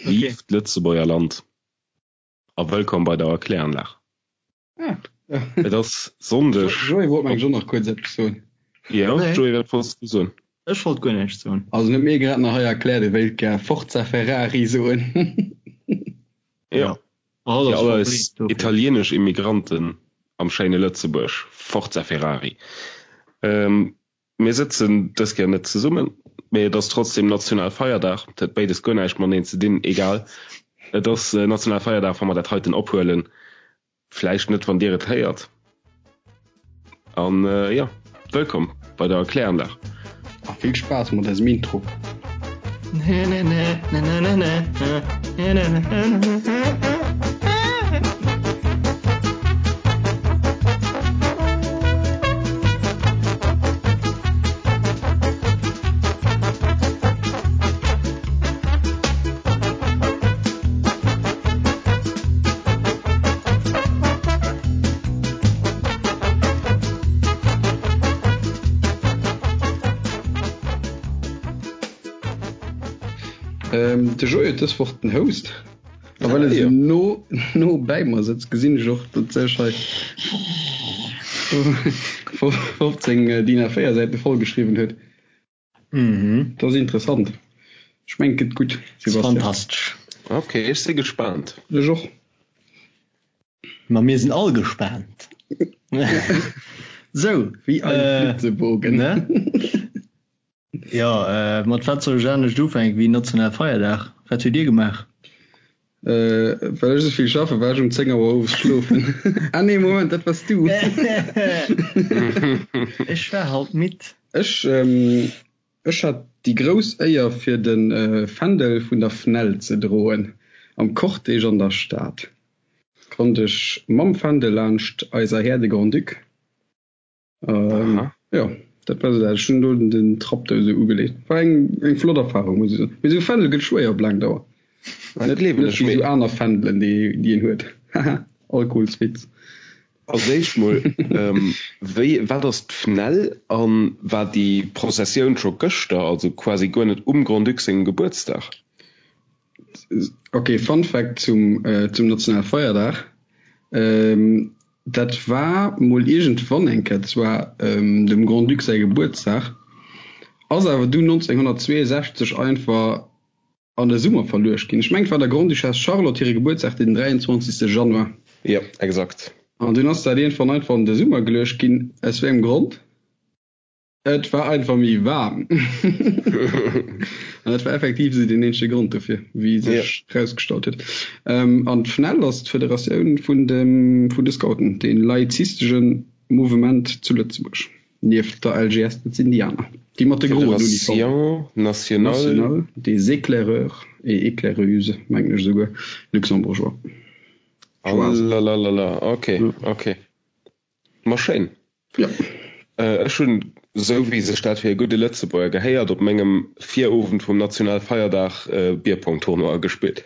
Vive d'Lëtzebuerger Land a wëllkomm bei der Erkläranlag. Ah, ja. Et ass Sonndeg. Joé wollt mengen ech och nach kuerz eppes soen. Jo, Joé, wat wollts du soen? Ech wollt guer näischt soen. Also en huet mir grad nach hei erkläert, e wéilt gär Forza Ferrari soen. Jo, fir all eis italienesch Immigranten am schéine Lëtzebuerg, Forza Ferrari. Mir sëtzen dës Kéier net zesummen, mee et ass trotzdem Nationalfeierdag. Dat huet béides guer näischt mateneen ze dinn, egal. Et ass Nationalfeierdag, wa mer dat heiten ophuelen. Vläicht net, wann Dir et héiert. An jo, wëllkomm bei der Erkläranlag. A vill Spaass mat eisem Intro. De Joé huet dës Woch den Host. A well e sou no, no bäi mer sëtzt, gesinn ech och, datt sech hei 15 DIN A4 Säite vollgeschriwwen huet. Mhm. Dat ass interessant. Ech mengen, et gëtt gutt, Sebastian. Fantastesch. Ok, ech si gespaant. Ech och. Ma mir sinn all gespaant. Sou, Wéi ein Flitzebogen. Ne? Jo, mat wat soll ech anescht ufänken wéi nationale Feierdag? Wat hutt Dir gemaach? Well ech esou vill schaffen, war ech um 10 Auer owes schlofen. Ah nee, Moment, dat wars du. Ech war halt midd. Ech, ech hat déi grouss Éier fir de Fändel vun der FNEL ze droen am Cortège an der Stad. Konnt ech mam Fändel laanscht eiser Här de Grand-Duc. Jo, dat war sou dat. Ech hunn do den Trapp do esou ugeleet. War eng eng flott Erfahrung, muss ech soen. Mee esou Fändel gëtt schwéier op laang Dauer. Dat gleewen Net ech. wéi Mee esou aner Fändelen, déi déi een huet. Haha, Alkoholswitz. als éischt mol, wéi, wat ass d'FNEL an war déi Prozessioun scho gëschter, also quasi guer net um Grand-Duc sengem Gebuertsdag? Ok, Fun Fact zum zum Nationalfeierdag, Dat war mol iergendwann eng Kéier, zwar dem Grand-Duc säi Gebuertsdag, ass awer dunn 1962 einfach an de Summer verluecht ginn. Ech mengen, et war der Grande-Duchesse Charlotte hire Gebuertsdag, den 23. Januar. Jo, exakt. An dunn ass dat iergendwann einfach an de Summer geluecht ginn. Aus wéi engem Grond? Et war einfach méi waarm. An dat war effektiv esou deen eenzege Grond dofir, wéi sech erausgestallt huet. An d'FNEL ass d'Federatioun vun dem, vun de Scouten, dee laizistesche Mouvement zu Lëtzebuerg, nieft der LGS, dat sinn déi aner, déi mat de groen Uniformen. Fédération nationale. Nationale des éclaireurs et éclaireuses, mengen ech esouguer, luxembourgeois. Alalalala, ok, ok. Ma schéin. Ja. Ech hunn, esou wéi sech dat fir e gudde Lëtzebuerger gehéiert, op mengem Virowend vum Nationalfeierdag Bierpong-Tournoi gespillt.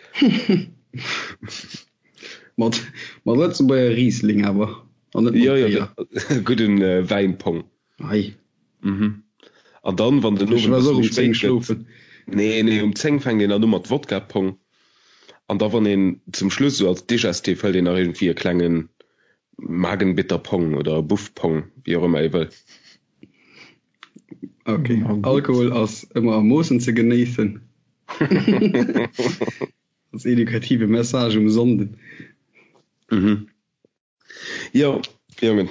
Mat mat Lëtzebuerger Riesling awer, an net mat Jo, jo, Béier. de gudden Wäinpong. Ei. Mhm. An dann, wann den Ech Owend e war bësse och méi um 10 spéit gëtt, schlofen. nee, nee, um 10 fänkt een dann u mat Wodka-Pong. An da wann een zum Schluss, esou als Digestif, hëlt een nach iergendwéi e klengen Magenbitterpong oder Buffpong, wéi och ëmmer ee wëll. Ok, Alkohol ass ëmmer a Moossen ze genéissen. Als edukative Message um Sonnden. Mhm. Jo, Jongen.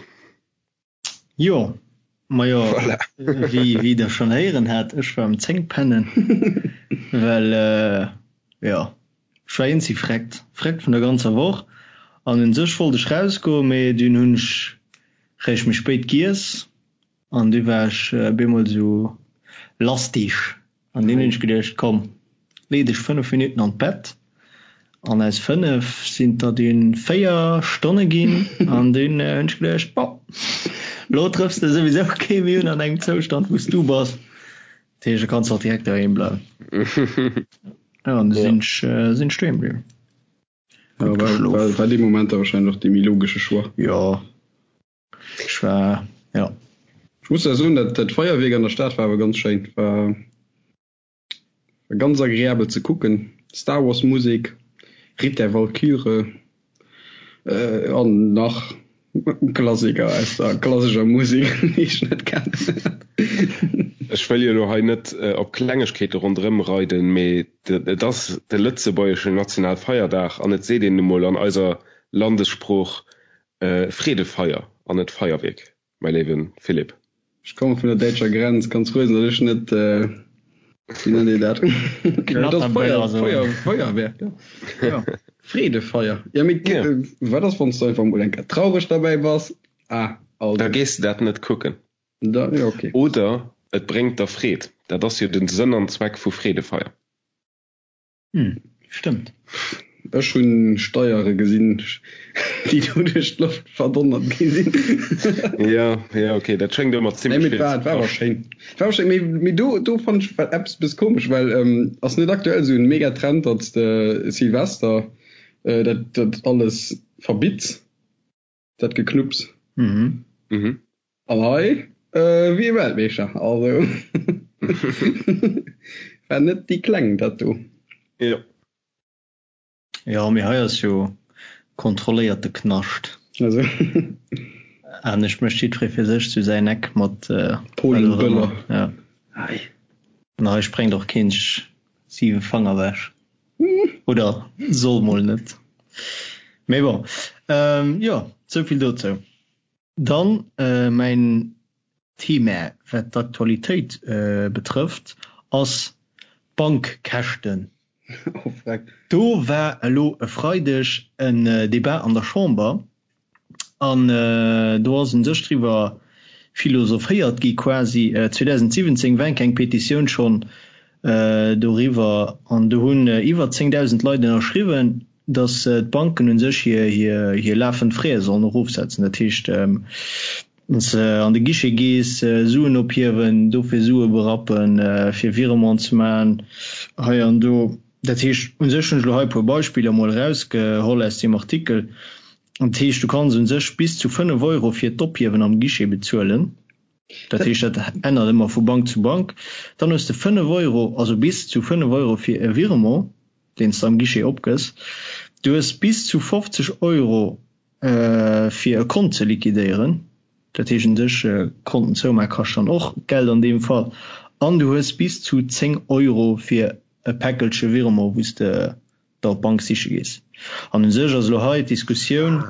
Jo, majo, Voilà. wéi, wéi der schonn héieren hat, ech war um 10 pennen, well, jo, ech war eenzi vreckt, vreckt vun der ganzer Woch an un sech wollt ech rausgoen, mee dunn hunn ech réischt méi spéit giess an du war ech bemol sou lastig An dunn hunn ech geduecht, komm, lee dech 5 Minutten an d'Bett. An aus 5 sinn der dunn 4 Stonne ginn. An dunn hunn ech geduecht, bon, lo trëffs de souwisou kee méi un an engem Zoustand, wou s du bass. Dat heescht, da kanns de och direkt doheem bleiwen. Jo, an du sinn ech, sinn ech doheem bliwwen. Ja, Gutt war, geschlof. war, war dee Moment da wahrscheinlech och dee méi logesche Choix. Jo, ech war, jo. Ech muss da soen, dat, dat Feierwierk an der Stad war awer ganz schéin. War, war ganz agreabel ze kucken. Star Wars Musek, Ritt der Walküre an nach Klassiker aus der klassescher Musek, déi ech net kennen. Ech wëll jo elo hei net op Klengegkeete ronderëm reiden, mee et ass de lëtzebuergeschen Nationalfeierdag an et seet een nu mol an eiser Landessprooch Freedefeier an net Feierwierk. Mäi léiwe Philippe. Ech komme vun der däitscher Grenz, kanns frou sinn, datt ech net, wéi nennt een dat? Knatterböller soen. Feuerwerk, jo. Freedefeier. Jo, mee wat ass, wann s du einfach emol eng Kéier traureg derbäi bass? Ah, also. Da gees de dat net kucken. Da, jo, okay. Oder et bréngt der Freed. Dat ass jo den Sënn an Zweck vu Freedefeier. Hm, stëmmt. Ech hunn Steiere gesinn, déi do duerch d'Loft verdonnert gi sinn. Ja, ja, okay, dat schéngt ëmmer zimlech vill ze kaschten. War awer schéin. War awer schéin, mee, mee do, do fannt ech eppes e bësse komesch, well ass net aktuell esou en Megatrend, datt s de Silvester dat, dat alles verbitts? Dat Geknupps. Mhm. Mhm. An hei äh, wie Weltmeeschter. Also war net déi kleng dat do. Jo. Jo, mee hei ass jo kontrolléierte Knascht. Also. Anescht mécht jiddweree fir sech zu säin Eck mat äh, Polenböller. Ja. Hei. An hei sprengt och keen sech 7 Fanger wech. Oder soll mol net. Mee bon, jo, souvill dozou. Dann mäin Thema, wat d'Aktualitéit betrëfft, ass d'Bankkäschten. Do war elo e Freideg en Debat an der Chamber An do ass un sech driwwer philosophéiert gi quasi. 2017 war eng Petitioun schonn doriwwer an do hunn iwwer 10.000 Leit ënnerschriwwen, datt d'Banken un sech hir lafend Frais sollen erofsetzen. Dat heescht, wann s de an de Guichet gees, Suen ophiewen, dofir Sue berappen, fir Virement ze maachen hei an do. Dat heescht, u sech hunn ech elo hei e puer Beispiller emol erausgeholl aus deem Artikel. Dat heescht, du kanns u sech bis zu 5 Euro fir d'Ophiewen am Guichet bezuelen. Dat heescht, dat ännert ëmmer vu Bank zu Bank. Dann hues de 5 Euro, also bis zu 5 Euro fir e Virement, deen s de am Guichet opgëss. Du hues bis zu 50 Euro fir e Kont ze liquidéieren. Dat heescht u sech, Konten zoumaache kascht dann och Geld an deem Fall. An du hues bis zu 10 Euro fir e Päckelche Virement, wou s de der op d'Bank siche gees. An u sech ass elo hei d'Diskussioun,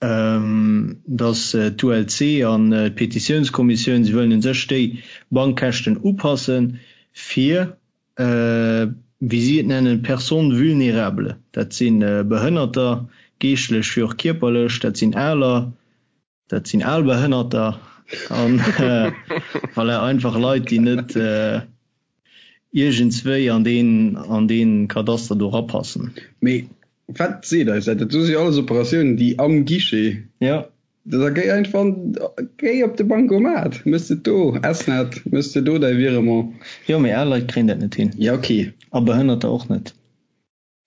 datt d'ULC an d'Petitiounskommissioun, si wëllen u sech déi Bankkäschten upassen, fir, wéi si et nennen, personnes vulnérables, dat si Behënnerter, geeschtlech wéi och kierperlech, dat sinn Aler, Dat sinn al Behënnerter an voilà, einfach Leit, déi net iergendswéi an deen, an deen Kadaster do rapassen. Mee wat seet eis dat? Dat do si jo alles Operatiounen, déi am Guichet. Jo. Da géi einfach, géi op de Bancomat, méchs de do, SNet, méchs de do däi Virement. Jo, mee al Leit kréien dat net hin. Ja, okay. A Behënnerter och net.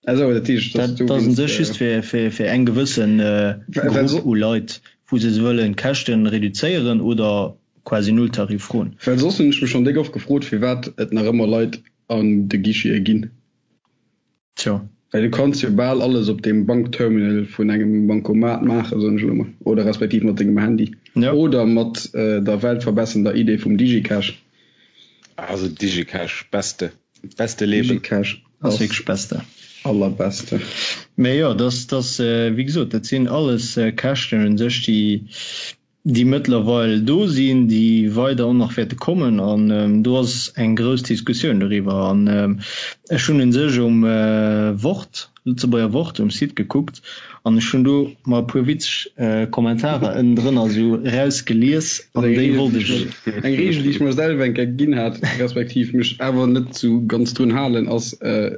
Also, dat heescht, dass du. Dat ass un sech just fir, fir, fir eng gewëssen Grupp u Leit, wou se wëllen d'Käschten reduzéieren oder quasi Nulltarif froen. Well soss hunn ech mech schonn déck oft gefrot, firwat et nach ëmmer Leit an de Guichete ginn. Tjo. Well du kanns jo bal alles op deem Bankterminal vun engem Bancomat maachen, soen ech elo mol, oder respektiv mat dengem Handy. Jo. Oder mat der weltverbessernder Idee vum Digicash. Also Digicash, beste. Beste Leben. Digicash ass wierklech beste. Allerbeste. Mee jo, dass, dass, wéi gesot, dat sinn alles Käschten un sech, déi, déi mëttlerweil do sinn, déi weider och nach wäerte kommen. An do ass eng grouss Diskussioun doriwwer. An ech hunn un sech um Wort, Lëtzebuerger Wort, um Site gekuckt an ech hunn do mer e puer witzeg Kommentarer ënnendrënner esou erausgelies an déi wollt ech. Eng Reegel, déi ech mer selwer eng Kéier ginn hat, respektiv mech awer net sou ganz drun halen, ass,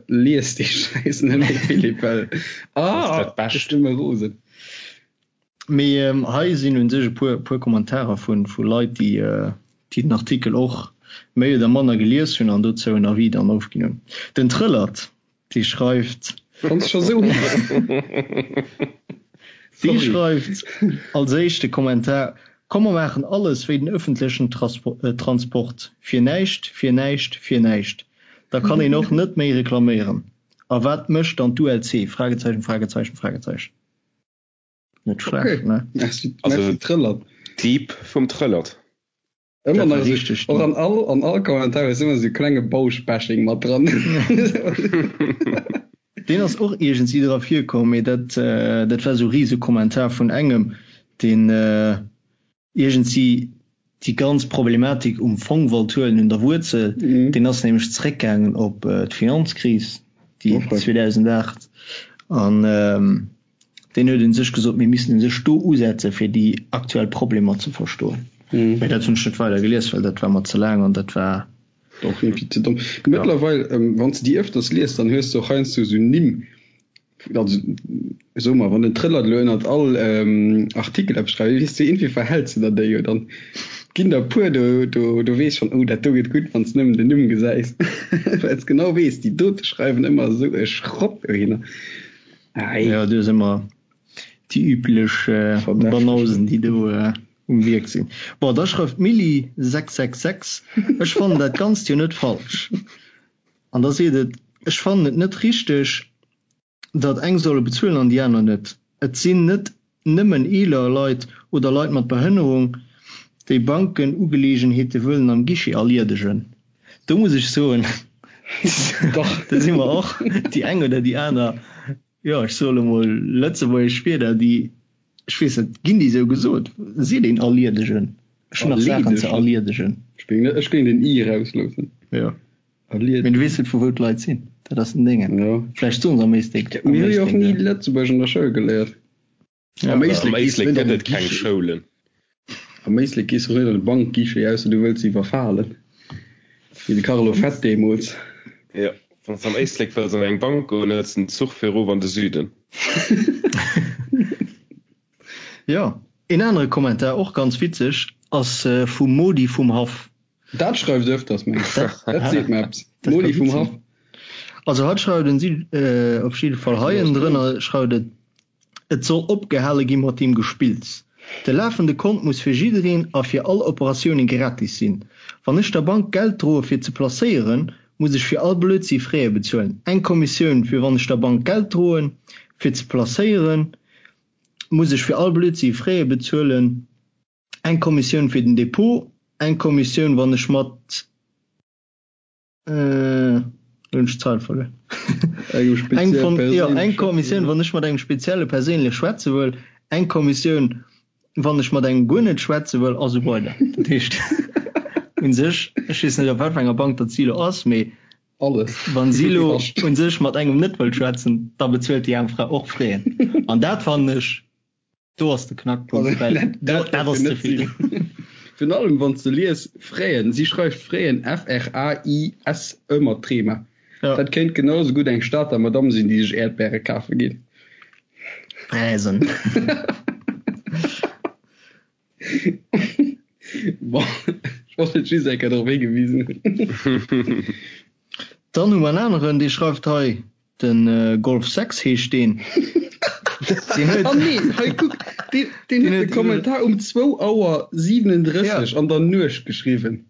Lies dee Schäiss net méi, Philippe, well, ah, ech ginn mer rosen. Mee hei sinn un sech e puer, puer Kommentarer vu, vu Leit, déi, déi den Artikel och méi oder manner gelies hunn an dozou en Avis dann ofginn hunn. Den Trëllert Déi schreift. Wann s scho sou Déi schreift als éischte Kommentar, Komm mer maachen alles wéi den ëffentlechen Transport, fir näischt, fir näischt, fir näischt. Da kann een och net méi reklaméieren. A wat mécht dann d'ULC? Fragezeichen, Fragezeichen, Fragezeichen. Net schlecht, okay. ne? Merci, also, merci Trëllert. Deep vum Trëllert. Ëmmer nach esou, och an all, an all Kommentar ass ëmmer esou klenge Bausch-Bashing mat dran. Deen ass och iergendwéi dra virkomm, mee dat, dat war esou rise Kommentar vun engem, deen iergendwéi déi ganz Problematik um Fong wollt huelen, un der Wuerzel. Deen ass nämlech zréckgaangen op d'Finanzkris, déi 2008, an Deen huet un sech gesot, mir missten u sech do usetzen, fir déi aktuell Problemer ze verstoen. Mä dat hunn ech net weider gelies, well dat war mer ze laang an dat war. Och iergendwéi ze domm. Mëttlerweil, wann s de déi ëfters liest, dann hues de och heiansdo esou Nimm, also soe mer, wann den Trëllert elo ënnert all Artikel eppes schreift, weess de, iergendwéi verhäls de der déi jo dann. Et ginn der e puer, do, do, do weess schonn, oh dat do gëtt gutt, wann s de nëmmen den Numm gesäis, well s genau weess, déi dote schreiwen ëmmer esou e Schrott dohinner. Ei. Ja, do si mer déi üblech Banausen, déi do um Wierk sinn. Bon, da schreift d'Milly 666, Ech fannen dat Ganzt jo net falsch. An da seet et, Ech fannen et net richteg, datt eng solle bezuelen an déi aner net. Et sinn net nëmmen eeler Leit oder Leit mat Behënnerung, déi Bankenugeleegenheete wëllen am Guichet erliedegen. Do muss ech soen, do si mer och déi eng oder déi aner, jo, ech soe lo mol lëtzebuergesch Wierder, déi, ech weess net, ginn déi esou gesot? Seet een erliedegen? Ech hunn nach Saachen ze erliedegen. Ech géing den i erausloossen. Jo. Mee du weess net, vu wou d'Leit sinn. Dat ass den Déngen. Vläicht soen se am Éislek. Mir hu jo och ni Lëtzebuergesch an der Schoul geléiert. Ja, am Éislek gees du net an de keng Schoulen. Am Éislek gees du net an de Bankguichet, ausser du wëlls iwwerfalen. Wéi de Carlo Fett deemools. Jo, wann s de am Éislek wëlls an eng Bank goen, hëls de den Zuch fir erof an de Süden. Jo, een anere Kommentar, och ganz witzeg, ass vum Modi vum Haff. Dat schreift öfters, meng ech. Dat seet mer eppes. Modi vum Haff. Also hatt schreift en si op jidde Fall hei ënnendrënner schreift et, Et soll opgehale gi mat deem Gespills. De lafende Kont muss fir jiddereen a fir all Operatioune gratis sinn. Wann ech der Bank Geld droe fir ze placéieren, muss ech fir all Blödsinn Fräe bezuelen. Eng Kommissioun fir wann ech der Bank Geld droen fir ze placéieren, muss ech fir all Blödsinn Fräe bezuelen. Eng Kommissioun fir den Depot, eng Kommissioun wann ech mat. Äh, hunn ech d'Zeil verluer. Eng von, jo, eng Kommissioun, wann ech mat engem spezielle perséinlech schwätze wëll, eng Kommissioun, wann ech mat engem guer net schwätze wëll, a sou weider. Dat heescht, u sech, ech weess net, op wat fir enger Bank datt si elo ass, mee Alles. wann si elo u sech mat engem net wëll schwätzen, da bezuelt déi aarm Fra och Fräen. An dat fannen ech Do ass de Knackpunkt, well dat ass ze vill. Virun allem wann s de lies Fräen, si schreift Fräen, F-R-A-I-S-E mat Trema. Dat kéint genau esou gutt eng Stater Madamm sinn, déi sech Äerdbäre kafe geet. Fräsen. Bon, ech wollt et just eng Kéier drop higewisen hunn. Dann hu mer en aneren, dee schreift hei, Den Golf 6 heescht deen. Deen huet. Ah nee, hei kuck, deen, deen huet de Kommentar um 2 Auer 37 an der Nuecht geschriwwen.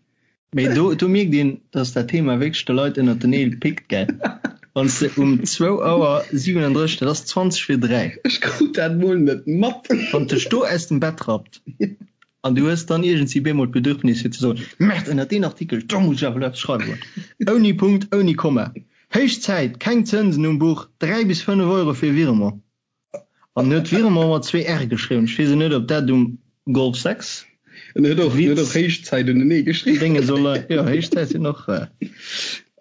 Mee do, do mierkt een, dass dat Thema wierklech de Leit ënnert den Neel pickt, gell? Wann s de um 2 Auer 37, dat ass 20 vir 3. Ech krut dat mol net mat. Wann dech do aus dem Bett rappt an du hues dann iergendwéi bemol d'Bedürfnis fir ze soen, Merde, ënnert deen Artikel, do muss ech awer elo eppes schreiwen. Ouni Punkt, ouni Komma. Héich Zäit, keng Zënsen um Buch, 3 bis 5 Euro fir Virement. An huet Virement mat zwee R geschriwwen. Ech weess net, ob dat um Golf 6 En huet och, huet och Héich Zäit unenee geschriwwen. Dénge soll, jo, Héich Zäit sinn och.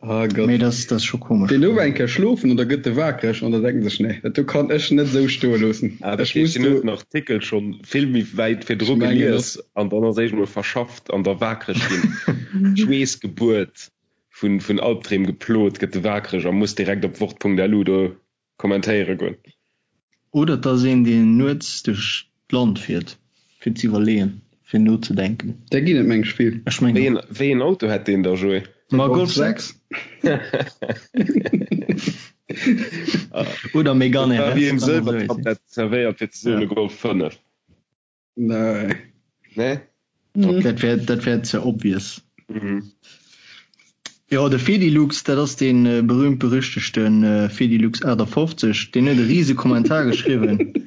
Ah Gott. Mee dat ass scho komesch. Deen do war eng Kéier schlofen an da gëtt e waakreg an da denkt en sech, nee, dat do kann ech net esou stoe loossen. Ah, dat heescht, deen huet den Artikel schonn vill méi wäit virdru gelies an dann ass éischt emol verschafft an da waakreg ginn. Schweessgebuert. Vun vun Albdreem geplot, gëtt e waakreg a muss direkt op wort.lu do kommentéiere goen. Oder et ass een, deen nuets duerch d'Land fiert, fir z'iwwerleeën, fir nozedenken. Där ginn et meng ech vill. Ech mengen och. Wéi een Auto hätt deen da, Joé? Ma Golf 6. Oder Megane RS. Wéi een Sëlwertablett zerwéiert fir ze soen e Golf 5. Jo, de Fedilux, dat ass dee berühmt-berüchtegte Fedilux 58, deen huet e rise Kommentar geschriwwen.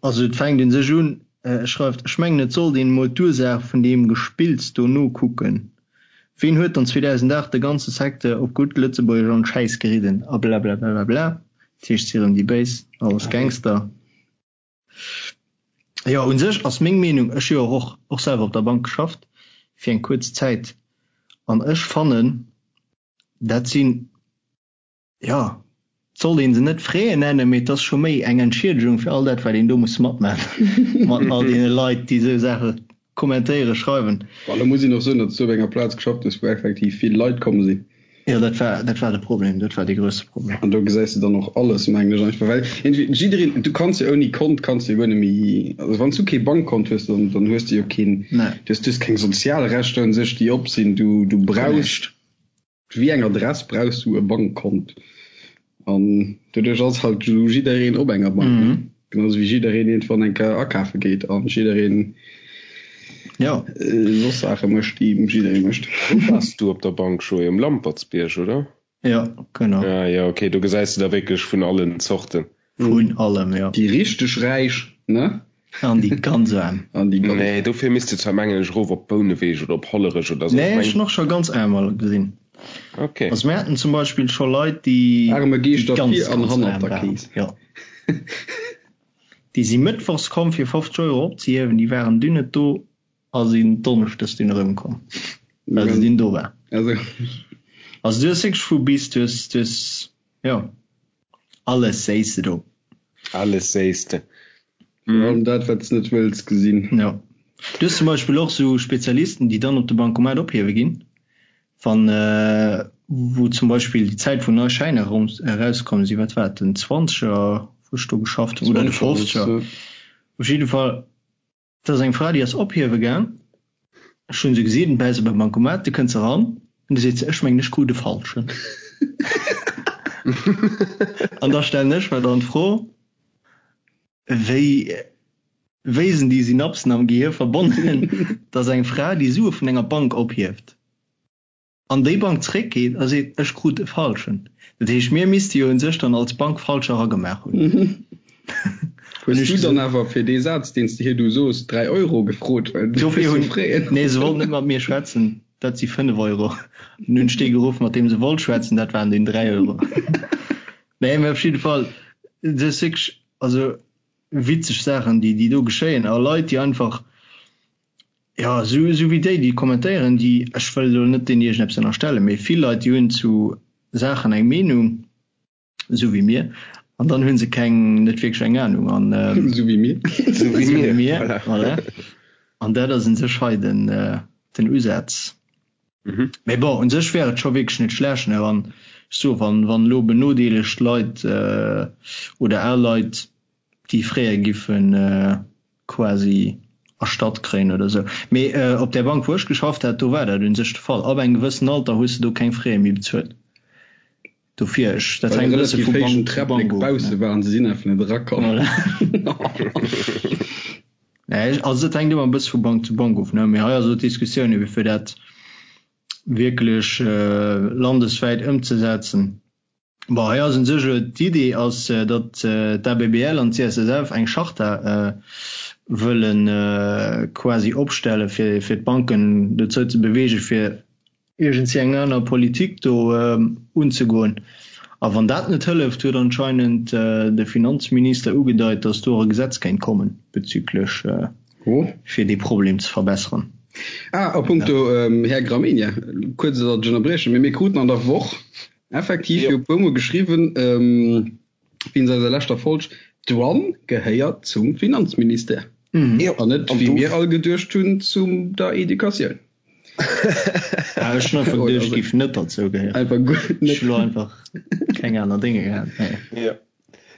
Also et fänkt un sech un, e schreift, Ech mengen et sollt een emol d'Ursaach vun deem Gespills do nokucken. Ween huet dann 2008 de ganze Secteur op gutt Lëtzebuergesch an d'Schäiss geridden? A blablablablabla. Dat heescht, si erëm déi Béis, alles Gangster. Jo, un sech ass meng Meenung, ech hu jo och och selwer op der Bank geschafft fir eng kuerz Zäit, an ech fannen, dat sinn, jo, et sollt ee se net Frais nennen, mee et ass scho méi eng Entschiedegung fir all dat, wat een do muss matmaachen mat all deene Leit, déi esou Saache kommentéieren, schreiwen. Bon, da muss een och soen, datt s du op enger Plaz geschafft hues, wou effektiv vill Leit komm sinn. Jo, dat war, dat war de Problem, dat war dee grousse Problem. An do gesäis de dann och alles, mengen ech einfach, well iergendwéi jiddereen, du kanns jo ouni Kont kanns du jo guer net méi, also wann s du kee Bankkont hues, dann, dann hues du jo keen, Nee. du hues, du hues keng sozial Rechter un sech, déi op sinn, du, du brauchst. Wéi eng Adress brauchs du e Bankkont? An doduerch ass halt esou jiddereen op enger Bank, ne? Genau esou wéi jiddereen iergendwann eng Kéier akafe geet an jiddereen Jo. soss Saache mécht, déi jidderee mécht. Wou waars du op der Bank, Joé? Um Lampertsbierg, oder? Jo, genau. Ah jo, okay, do gesäis de der wierklech vun allen Zorten. Vun allem, jo. Déi richteg Räich, ne? An déi ganz Aarm. An déi ganz. Nee, dofir misst de zwar mengen ech erof op Bouneweg oder op Hollerech oder sou. Nee, ech hunn och scho ganz Aarmer gesinn. Okay. Also mir haten zum Beispill scho Leit, déi Aarme Geeschter ganz, vir an ganz hannert aarm der waren. Kees. Jo. Déi si mëttwochs komm fir 50 Euro opzehiewen, déi waren dunn net do a sinn donneschdes dunn erëmkomm, well se dunn do war. Also. Also du hues wierklech vu bis, du hues, du hues, jo. Alles séiss de do. Alles séiss de. Virun allem dat, wat s net wëlls gesinn. Jo. Du hues zum Beispill och sou Spezialisten, déi dann op de Bancomat ophiewe ginn, wann, wou zum Beispill déi Zäit, wou nei Schäiner erauskomm sinn, wat war et, den Zwanzeger, wou ech do geschafft hunn, oder de Fofzeger, op jidde Fall, Et ass eng Fra, déi ass ophiewe gaang. Ech hunn se gesinn, bäi se beim Bancomat, du kënnt se eran an du seet se, ech mengen ech krut e falschen. An da stellen ech mer dann d'Fro, wéi, wéi sinn déi Synapsen am Gehir verbonnen, datt eng Fra, déi Sue vun enger Bank ophieft, an déi Bank zréckgeet a seet, ech krut e falschen. Dat heescht, mir misste jo un sech dann als Bank falsch eragemaach hunn. Hues du dann awer fir dee Saz, deen s de hir du sos, 3 Euro gefrot, well du Dofir hunn, nee, se wollt net mat mir schwätzen, dat si 5 Euro. An hunn ech dee geruff, mat deem se wollt schwätzen, dat waren dunn 3 Euro. Nee, mä op jidde Fall, dat ass wierklech, also witzeg Saachen, déi, déi do geschéien a Leit, déi einfach, Jo, esou esou wéi déi, déi kommentéieren, déi, ech wëll elo net deenen iergendeppes ënnerstellen, mee vill Leit, déi hunn zu Saachen eng Meenung, esou wéi mir, an dann hu se keng, net wierklech eng Anung an. Esou wéi mir. Esou wéi mir, voilà. An dat ass un sech hei den, den Usaz. Mee bon, un sech wär et scho wierklech net schlecht, ne, wann, ech soe, wann, wann elo benodeelegt Leit oder al Leit déi fréier giffen quasi erstatt kréien oder sou. Mee op där Bank wou ech geschafft hat, do war dat un sech de Fall. Ab engem gewëssen Alter hues de do keng Frais méi bezuelt. Dofir, ech, dat Well hänkt e bësse relativ vu héijen Bank zu Träpplek Bank of, bausse ne. waren, se sinn einfach net erakomm. Voilà. Nee, also dat hänkt ëmmer e bësse vu Bank zu Bank of, ne. Mee hei ass elo d'Diskussioun ebe fir dat wierklech landeswäit ëmzesetzen. Bon, hei ass un sech elo d'Idee ass, datt d'ABBL an d'CSSF eng Charta wëlle quasi opstelle fir fir d'Banken dozou ze beweegen, fir iergendwéi eng aner Politik do unzegoen. A wann dat net hëlleft, huet anscheinend de Finanzminister ugedeit, datt do och e Gesetz kéint kommen bezüglech fir dee Problem ze verbesseren. Ah, a punkto Här Gramegna, kuerz, datt ech ënnerbriechen, mee mir kruten an der Woch Effektiv, jo puer mol geschriwwen, wéinst eiser leschter Folg, d'Douane gehéiert zum Finanzministère an net, wéi mir all geduecht hunn, zu der Educatioun. Ah, ech hunn einfach geduecht, géif net derzou gehéieren. Einfach guer net. Ech hu lo einfach keng aner Dénge gehat. Jo.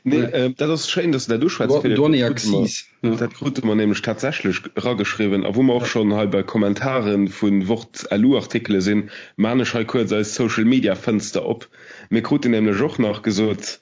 Nee, dat ass schéin, dass de dat uschwätz, Philippe. Douane et Accises. Dat krute mer nämlech tatsächlech erageschriwwen. A wou mer och schonn hei bei Kommentare vu Wort-LU-Artikele sinn, maan ech hei kuerz eis Social-Media-Fënster op. Mir kruten nämlech och nach gesot,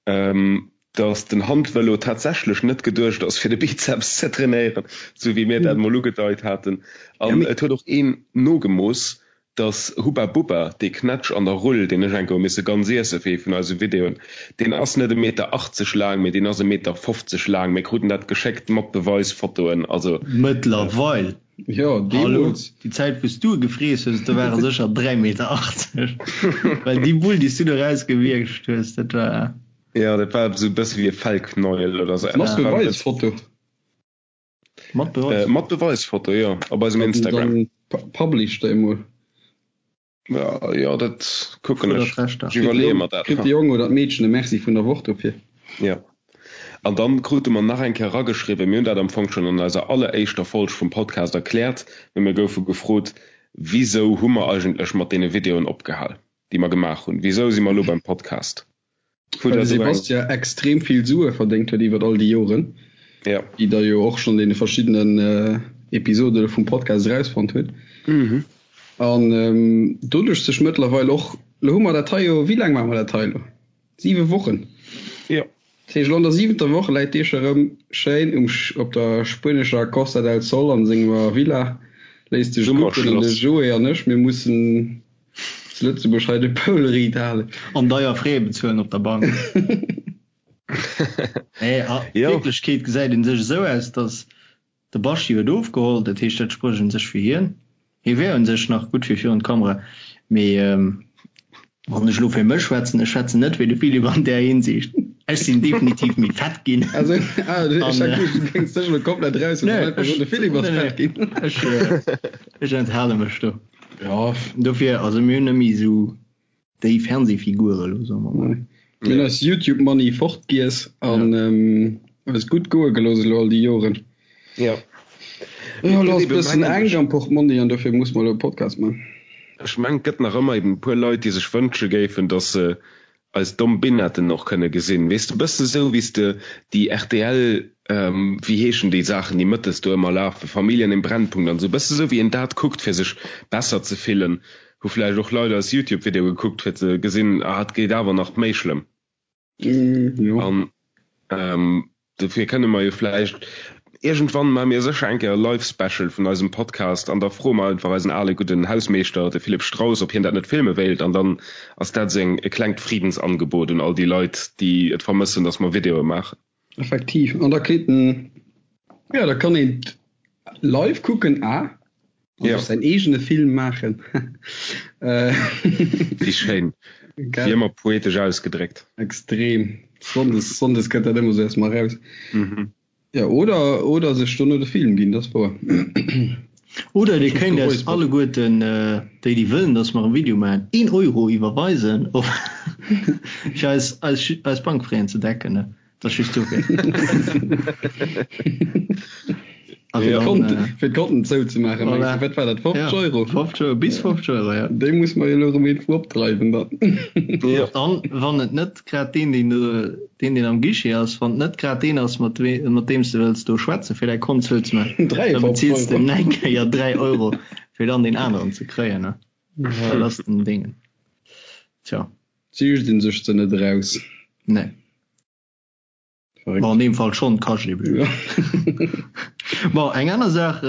dass den Handvëlo tatsächlech net geduecht ass, fir de Bizeps ze trainéieren, sou wéi mir dat mol ugedeit haten. An et huet och een nogemooss. Dass Hubba Bubba, dee Knätsch an der Rull, deen ech eng Kéier hu misse ganz iesse fir ee vun eise Videoen, deen ass net e Meter 80 laang, mee deen ass e Meter 50 laang. Mir kruten dat geschéckt mat Beweisfotoen. Also. Mëttlerweil. Jo, Hallo, deemools. déi Zäit wou s du e gefreess hues, do war e sécher 3 Meter 80. Well déi Bull, déi s du do erausgewiergt hues, dat war. Jo, dat war esou e bësse wéi e Fellknäuel oder esou. Mat Beweisfoto. Mat Beweis? Äh, mat Beweisfoto, jo, op eisem Instagram. Dann publish déi mol. Ja, jo, dat kucken ech. Ech iwwerleeë mer dat. Kritt de Jong oder d'Meedchen e Merci vun der Woch dofir. Ja. An dann krute mer nach eng Kéier erageschriwwen, mir hunn dat am Fong schonn an eiser alleréischter Folg vum Podcast erkläert, mee mir goufe gefrot, Wisou hu mer eigentlech mat deene Videoen opgehal, déi mer gemaach hunn? Wisou si mer elo beim Podcast? Well de Sebastien extrem vill Sue verdéngt huet iwwert all déi Joren, ja. déi der jo och schonn deene verschiddenen Episode vum Podcast erausfonnt huet. Mhm. An doduerch sech mëttlerweil och, lo hu mer dat hei jo, wéi laang maache mer dat hei elo? Siwe Wochen. Jo. Dat heescht, elo an der siwenter Woch läit dee scho rëm schéin um, op der spuenescher Costa del Sol an senger Villa, léisst sech gucken an de Joé an ech, mir mussen Zu Lëtzebuerg hei de Poul riit halen. An deier Frais bezuelen op der Bank. Nee, a Wierklechkeet gesäit een sech esou aus, datt de Baschi huet ofgeholl, dat heescht dat sprécht un sech fir hien. Hie wär un sech nach gutt fir virun d'Kamera, mee wann ech elo fir mech schwätzen, ech schwätzen net wéi de Philippe an där Hinsicht, ech sinn definitiv méi fett ginn. Also, ah, ech hat geduecht, du géings dech elo komplett eraus huelen an einfach soen, de Philippe ass fett ginn. Ech enthale mech do. Ja. Dofir, also mir hunn net méi esou déi Fernsehfigur elo, soe mer mol. Mir hunn eis Youtube Money fortgiess an eis gutt goe gelooss elo all déi Joren. Jo. Jo, elo ass e bëssen enk am Portmonni an dofir muss mer elo e Podcast man. Ech mengen, et gëtt nach ëmmer eben e puer Leit, déi sech wënsche géifen, datt se eis domm Binetten och kënne gesinn. Weess de, bësse sou wéi s de déi rtl, wéi heeschen déi Saachen, déi mëttes do ëmmer lafen, Familien im Brennpunkt an esou, bësse sou wéi een dat kuckt fir sech besser ze fillen, hu vläicht och Leit eis Youtube-Videoe gekuckt fir ze gesinn, ah et geet awer nach méi schlëmm. Jo. An Dofir kënne mer jo vläicht iergendwann maache mir sécher eng Kéier e Live Special vun eisem Podcast an da froe mer einfach eisen ale gudden Hausmeeschter, de Philippe Strauss, ob hien dat net filme wéilt an dann ass dat esou eng e klengt Friedensangebot un all déi Leit, déi et vermëssen, dass mer Videoe maachen. Effektiv. An da kritt en, jo, da kann een et live kucken a An Ja. sech säin eegene Film maachen. Wéi schéin. Gell? Wéi ëmmer poetesch ausgedréckt. Extrem. Sonndes, sonndes kënnt dat ëmmer sou erst mal raus. Mhm. Ja, oder, oder sech dono de Film ginn, dat ass wouer. Oder dir kéint eis Geräusper. alleguerten, déi déi wëllen, dass mer e Video maachen, een Euro iwwerweisen, op fir eis, eis, eis Bankfraisen ze decken, ne? Dat ass just dofir. Also ja. Konten, äh, fir d'Konten zouzemaachen, voilà. Wat war dat 50 ja, Euro? 50 Euro, bis 50 Euro, ja. Déi muss man jo elo erëm irgendwou opdreiwen dann. Ja. Dann, wann et net grad deen, deen, deen, deen am Guichet ass, wann et net grad deen ass, mat, mat deem s de wëlls do schwätzen, fir däi Kont zouzemaachen, da beziils de eng Kéier 3 Euro, fir dann deen aneren ze kréien, ne? Ja. Dat ass den Ding. Tja. Ziicht een sech se net eraus. Nee. Verréckt. Bon, an deem Fall schonn, kascht ebe just. Bon, eng aner Saach,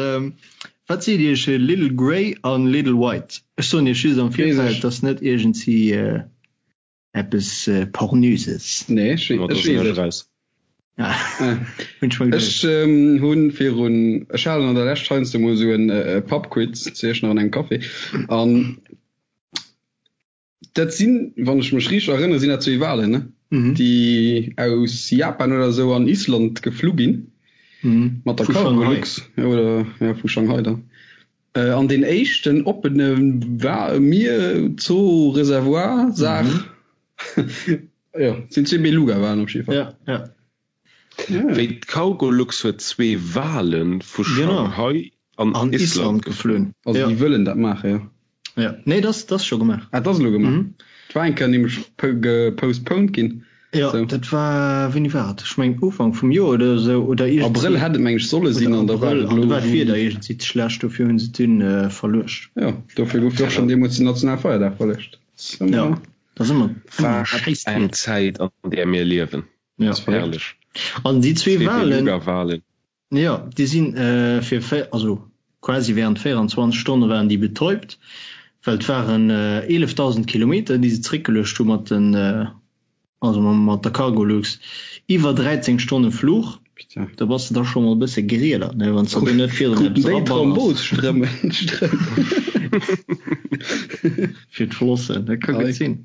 Wat seet Iech Little Grey an Little White? Ech soen Iech just am Virfeld, et ass net iergendwéi eppes Pornöses. Nee, ech weess et. Raus. Hunn ech mer geduecht. Ech hunn virun, ech halen an der Lescht heiansdo mol esou en Pubquiz zu Iechternach an engem Café an Dat sinn, wann ech mech richteg erënnere, sinn dat zwee Walen, ne? Déi aus Japan oder esou an Island geflu ginn. Mat der Vu Shanghai. Cargolux, oder ja, vu Shanghai dann. An deen éischten oppene Wa Mier, Zoo, Reservoir, Saach, jo, sinn zwee Beluga-Walen op jidde Fall. Ja, ja. Wéi d'Cargolux huet zwee Wale vu Shanghai an Island geflunn. Also déi wëllen dat maachen, jo. Jo, nee, dat ass scho gemaach. Ah, dat ass elo gemaach. Et war eng Kéier nämlech gepostponed ginn. Jo, dat war, wéini war et? Ech mengen Ufank vum Joer oder esou, oder iergendwéi. Abrëll hätt et meng ech solle sinn an da war et elo. An du war d'Wieder iergendwéi ze schlecht, dofir hunn se et dunn verluecht. Jo, dofir gouf jo och schonn deemools den Nationalfeierdag verluecht. Jo, dat ass ëmmer Wat eng Zäit an där mir liewen. Ja. Das war herrlech. An déi zwee Walen, Walen. Ja, déi sinn äh, fir also quasi während 24 Stonne waren déi betäubt. Well et waren 11.000 Kilometer, déi se zeréckgeluecht hu mat den, also mat der Cargolux, iwwer 13 Stonne Fluch. Do bass de da scho mol e bësse gerielert, ne, wann s de do net virun eppes eraballers. Fir d'Flossen, dat ka gutt sinn.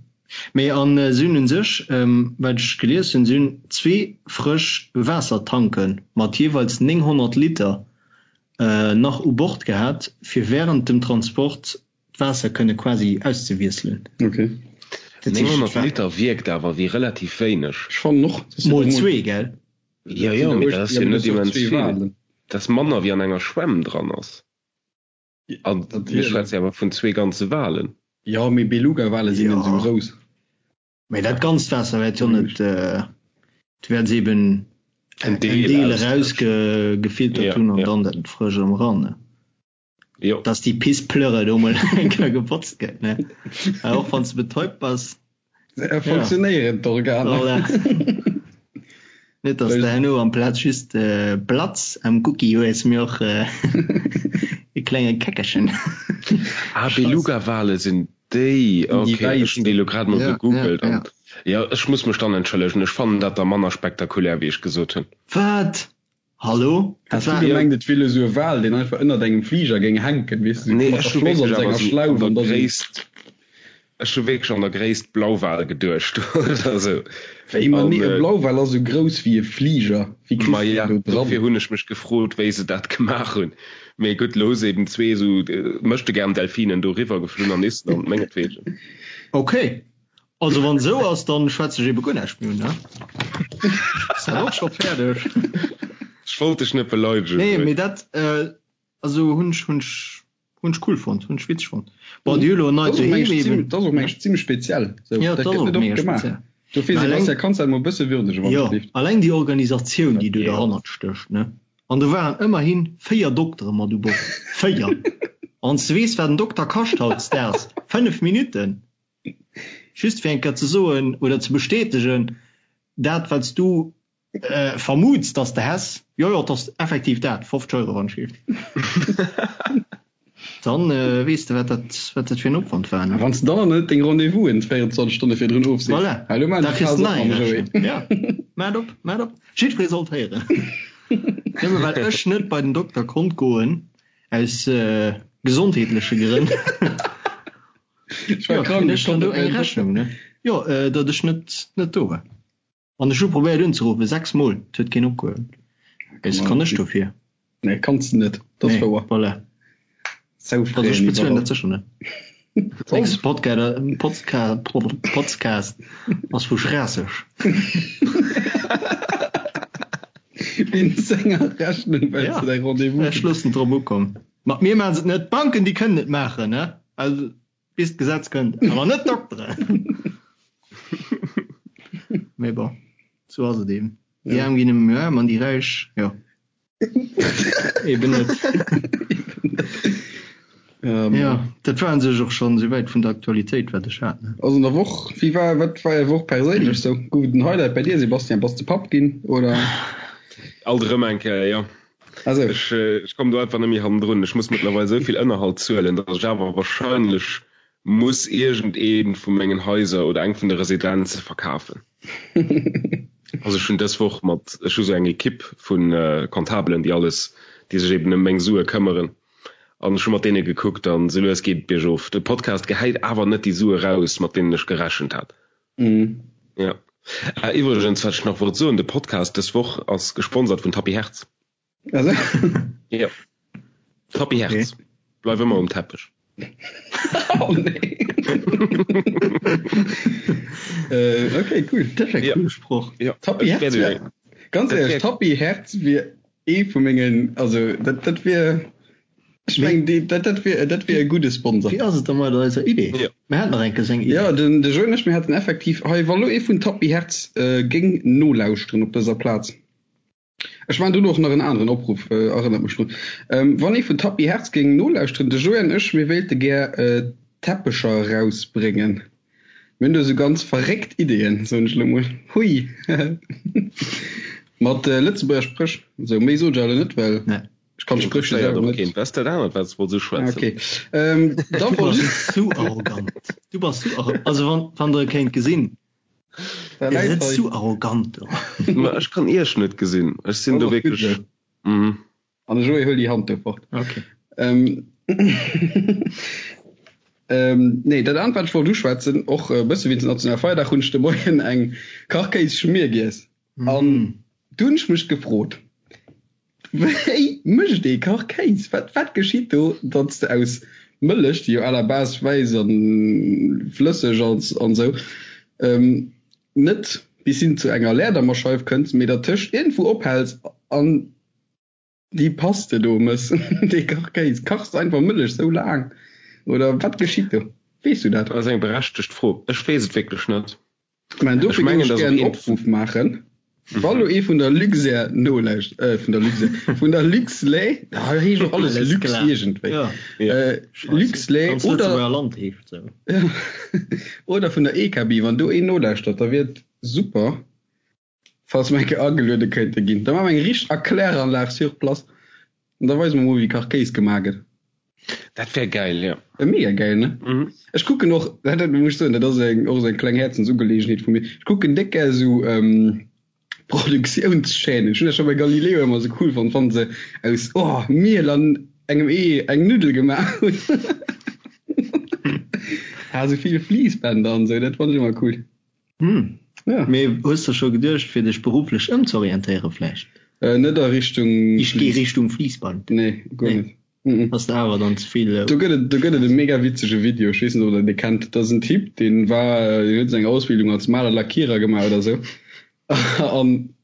Mee an si hunn u sech, wat ech gelies hunn, si hunn zwee frësch Waassertanke mat jeeweils 900 Liter nach u Bord gehat, fir wärend dem Transport d'Waasser kënne quasi auszewiesselen. Ok. 900 Liter wierkt awer wéi relativ wéineg. Ech fannen och. Mol zwee, gell? Jo, jo, mee dat ass jo net immens vill. Dat ass manner wéi an enger Schwämm dran ass. A mir schwätze jo awer vun zwee ganze Walen. Jo, mee Beluga-Wale sinn net esou grouss. Mee dat ganzt Waasser wäert jo net, du wäerts eben en Deel erausgefiltert hunn an dann dat frësch erëm eran, ne? Jo. Dass déi Pissplörre do mol eng Kéier gebotzt gëtt, ne? Well och wann s de betäubt bass. Funktionéieren d'Organer. Voilà. Net dass de herno amplaz just Blatz am Gucki hues, mee och e klenge Käckerchen. Ah, Beluga-Wale sinn déi, ok, ech hunn déi elo grad mol gegoogelt an jo, ech muss mech dann entschëllegen, ech fannen dat da manner spektakulär wéi ech gesot hunn. Wat? Hallo? Has du gemengt et wier lo sou e Wal deen einfach ënnert engem Fliger géing hänken, weess de, Nee, ech hu wierklech awer sou an der Gréisst, ech hu wierklech an der Gréisst Blauwal geduecht oder sou. Wéi? Ma nee, e Blauwal ass sou grouss wéi e Fliger, wéi kriss de deen do dran? Dofir hunn ech mech gefrot wéi se dat gemaach hunn. Mee gutt, lo hu se eben zwee sou Möchtegern-Delfinen do riwwer geflunn an Island, mengetwegen. Ok, also wann esou ass, dann schwätze ech ebe guer näischt méi un, ne? Ass dat och scho fäerdeg? Ech wollt dech net beleidegen. Nee, mee dat, also hunn ech, hunn ech, hunn ech cool fonnt, hunn ech witzeg fonnt. Bon, déi hu lo en neit Doheem eben. Dat ass och mengen ech zimmlech speziell, sou. Ja, dat ass och mega speziell. Dofir, Sebastian, kanns de dat mol e bësse würdegen, wann et leeft? Jo, alleng déi Organisatioun, déi do derhannert stécht, ne? An do waren ëmmerhi 4 Doktere mat u Bord. 4! Wann s de weess, wat en Dokter kascht hautdesdaags, 5 Minutten! Just fir eng Kéier ze soen oder ze bestätegen, dat, wat s du vermuts, dass de häss, jo, jo, et ass effektiv dat, 50 Euro, wann ech géif. Dann weess de, wat dat, wat dat fir en Opwand war, ne? A wann s de dann nach net deng Rendez-vousen 24 Stonne virdrun ofsees. Voilà, Hallo, maan da kriss de nach eng Rechnung. Ja, maat op, maat op. Jiddweree sollt héieren. Nëmme well ech net bei den Dokter konnt goen, aus gesondheetleche Grënn. Ech war krank, ech konnt net bei den Dokter. Jo, datt ech net, net do war. An ech hu probéiert unzeruffen, 6 mol, et huet keen opgehuewen. Wéi kann ech dofir? Nee, kanns de net, dat ass wouer. Voilà. Sou Also ech bezuelen dat sécher net. Nächste Podcast ass vu Schraasseg. Wéinst senger Rechnung, well s de däi Rendez-vous. Ech loossen et drop ukommen. Mat mir maachen se et net, d'Banken déi kënnen et maachen, ne? Also. Bis d'Gesetz kënnt, awer net d'Dokteren. Mee bon, sou ass et eben. Déi Aarm ginn ëmmer méi aarm an déi Räich, jo, eben net. Jo, dat war u sech och schonn esouwäit vun der Aktualitéit, wat ech hat, ne? Also an der Woch, wéi war, wat war är Woch perséinlech sou? Gouf et en Highlight bei dir, Sebastian? Bass de Papp ginn, oder? Alt erëm eng Kéier, jo. Also. Ech, ech kommen do einfach net méi hannendrun. Ech muss mëttlerweil esou vill Ënnerhalt zuelen, datt ech awer wahrscheinlech muss iergendee vu mengen Haiser oder eng vun de Residenze verkafen. Also ech hunn dës Woch mat, ech hu sou eng Ekipp vu Comptabelen, déi alles, déi sech eben ëm meng Sue këmmeren. An ech hu mat deene gekuckt an esou lues geet et biergof. De Podcast gehäit awer net déi Sue raus, mat deenen ech gerechent hat. Ja. Ah, iwwregens, wat ech nach wollt soen, de Podcast dës Woch ass gesponsert vun Tapis Hertz. Also? Ja. Tapis Hertz. Okay. Bleif ëmmer um Teppech. Oh nee. äh, okay, cool. Dat ass e ja. coole Sproch. Ja. Tapis Hertz wär, ganz ehrlech, Tapis Hertz wier ee vu mengen, also dat, dat wier Ech mengen, déi, dat, dat wier, dat wier e gudde Sponsor. Wéi ass et da mat eiser Idee? Ja. Mir haten nach eng Kéier eng Idee. Ja, den, de Joe an ech, mir haten effektiv hei, wa lo ee vun Tapis Hertz äh, géing nolauschteren op dëser Plaz. Ech maachen dono och nach en aneren Opruff, äh, erënnert mech drun. Ähm, wann ee vun Tapis Hertz géing nolauschteren, de Joe an ech, mir wéilte gär äh, Teppecher erausbréngen. Mir hunn do esou ganz verréckt Ideeën, soen ech elo mol. Hui! Mat äh, Lëtzebuerger Spréch. Sou, méi soen ech awer elo net, well. Nee. Ech kann d'Spréchwuert selwer net. Wat ass dat anert, wat s de wolls uschwätzen? Okay. Ähm, da wollt ech. Du bass zu arrogant. Du bass zu arrogant. Also wann, wann der e kéint gesinn. Der läit hei. Zu arrogant do. Ma ech kann iech net gesinn. Ech sinn do wierklech. Mhm. An de Joé, huel déi Hand do fort. Okay. Ähm, ähm, nee, dat anert, wat ech wollt uschwätzen, och e bësse wéinst dem nationale Feierdag, hunn ech de Moien eng Kachkéisschmier giess. An du hunn ech mech gefrot, Wéi mécht ee Kachkéis? Wat, wat geschitt do, datt s de aus Mëllech, déi jo à la base wäiss a flësseg ass an esou, net bis hin zu enger Leerdammerscheif kënns, mee dertëscht iergendwou ophäls an déi Paste do mëss, dee Kachkéis? Kachs de einfach Mëllech sou laang oder wat geschitt do? Weess du dat? Dat ass eng berechtegt Fro. Ech weess et wierklech net. Mä dofir géing ech gär en Opruff maachen, wa lo ee vun der Luxair nolauscht, äh, vun der Luxair, vun der Luxlait, da heescht och alles Lux iergendwéi, Luxlait oder, oder vun der EKB, wann do een nolauschtert, da wier et super, falls mer eng Kéier ageluede kéinte ginn. Da maache mer eng richteg Erkläranlag sur place an da weise mer mol, wéi Kachkéis gemaach gëtt. Dat wär gäil, jo. Wär mega gäil, ne? Mhm. Ech kucken och, dat dat muss ech soen, dat ass eng, och esou eng kleng Häerzensugeleegenheet vu mir, ech kucken déck gär esou Produktiounschaînen. Ech hunn dat scho bei Galileo ëmmer esou cool fonnt, wann se aus, oh, Miel an engem Ee eng Nuddel gemaach hunn. Ha, esou vill Fliissbänder an esou, dat fannt ech ëmmer cool. Hm. Ja. Mee hues de scho geduecht fir dech berufflech ëmzorientéiere vläicht? Äh, net a Richtung. Ich geh Richtung Fliissband. Nee, guer Nee. net. Mhm. Ass der awer dann ze vill. Do gëtt et, do gëtt et e mega witzege Video, ech weess net ob der dee kennt. Dat ass en Typ, deen war, deen huet seng Ausbildung als Maler Lackierer gemaach oder sou. An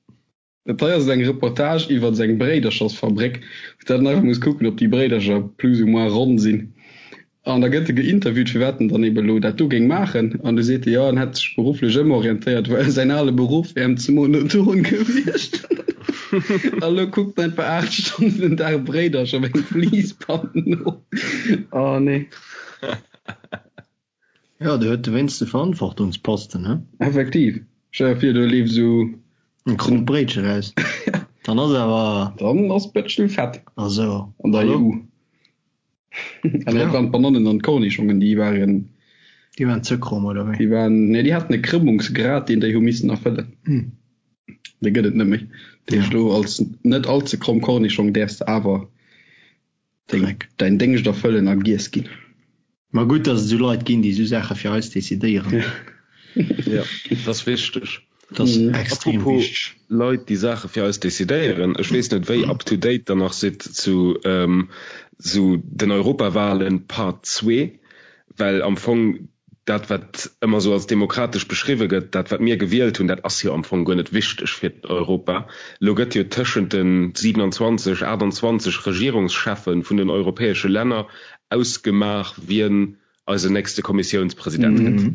Dat hei ass eng Reportage iwwert seng Bréiderchersfabréck, wou dat en einfach muss kucken, ob déi Bréidercher plus ou moins ronn sinn. An da gëtt e geinterviewt, firwat en dann eben elo dat do géing maachen. An du seet e, jo, en hätt sech berufflech ëmorientéiert, well säin ale Beruff wär em ze monoton gewiescht. A lo kuckt en einfach 8 Stonnen den Dag Bréidercher op engem Fliissband no. Oh nee. Jo, do huet de wéinst de Verantwortungsposten, he? Effektiv. Stell der vir, do leeft esou. En krommt Bréitche raus. Dann ass awer. Dann ass d'Bëtschel fett. Also, An der hallo? EU. An dat waren d'Banannen an d'Kornischongen, déi waren. Déi waren ze kromm, oder wéi? Déi waren, nee, déi haten e Krëmmungsgrad, deen déi hu missen erfëllen. Dee gëtt et net méi. Dat heescht, elo als net all ze kromm Kornischong däerfs de awer Dreck. Däin Déngscht erfëllen a giess ginn. Ma gutt, datt et esou Leit ginn, déi esou Saache fir eis decidéieren. Jo, dat ass wichteg. Dat ass extrem Apropos wichteg. Leit, déi Saache fir eis decidéieren, ech weess net, wéi up to date der nach sidd zu esou den Europawahlen Part zwee, well am Fong dat wat ëmmer esou als demokratesch beschriwwe gëtt, dat wat mir gewielt hunn, dat ass jo am Fong guer net wichteg fir Europa. Elo gëtt jo tëschent de 27, 28 Regierungscheffe vun den europäesche Länner ausgemaach, wien eisen nächste Kommissiounspresident gëtt.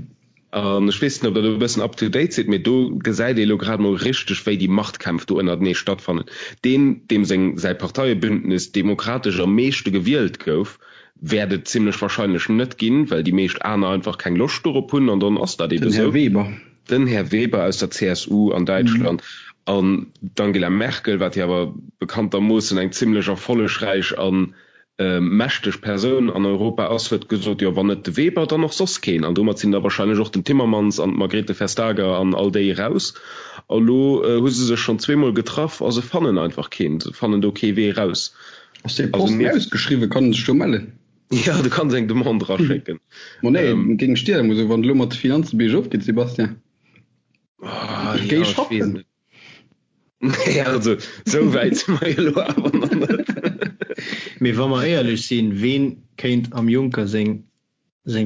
An ech weess net, ob Der do e bëssen up to date sidd, mee do gesäit ee elo grad emol richteg, wéi déi Machtkämpf do ënnertenee stattfannen. Deen, deem seng, säi Parteiebündnis demokratesch am meeschte gewielt gouf, Wäert et zimlech wahrscheinlech net ginn, well déi meescht aner einfach keng Loscht dorop hunn an dann ass dat ebe Den Här sou. Weber. Den Här Weber aus der CSU an Däitschland an d'Angela Merkel, wat jo awer bekanntermoossen eng zimlech erfollegräich a mächteg Persoun an Europa ass, huet gesot, jo wann net de Weber, dann och soss keen. An domat sinn da wahrscheinlech och den Timmermans an d'Margrethe Vestager an all déi eraus. A lo hu se sech schonn zweemol getraff a se fannen einfach keen, se fannen do kee Wee eraus. Ass dee Posten ausgeschriwwen? Kann en sech do mellen? Jo, du kanns eng Demande eraschécken. Ma nee, géing ech dir emol soen, wann et elo mat de Finanzen biergof geet, Sébastien. Ech géing schaffen. Nee, also esou wäit si mer jo elo awer nach net. Mee wa mer éierlech sinn, ween kéint am Juncker seng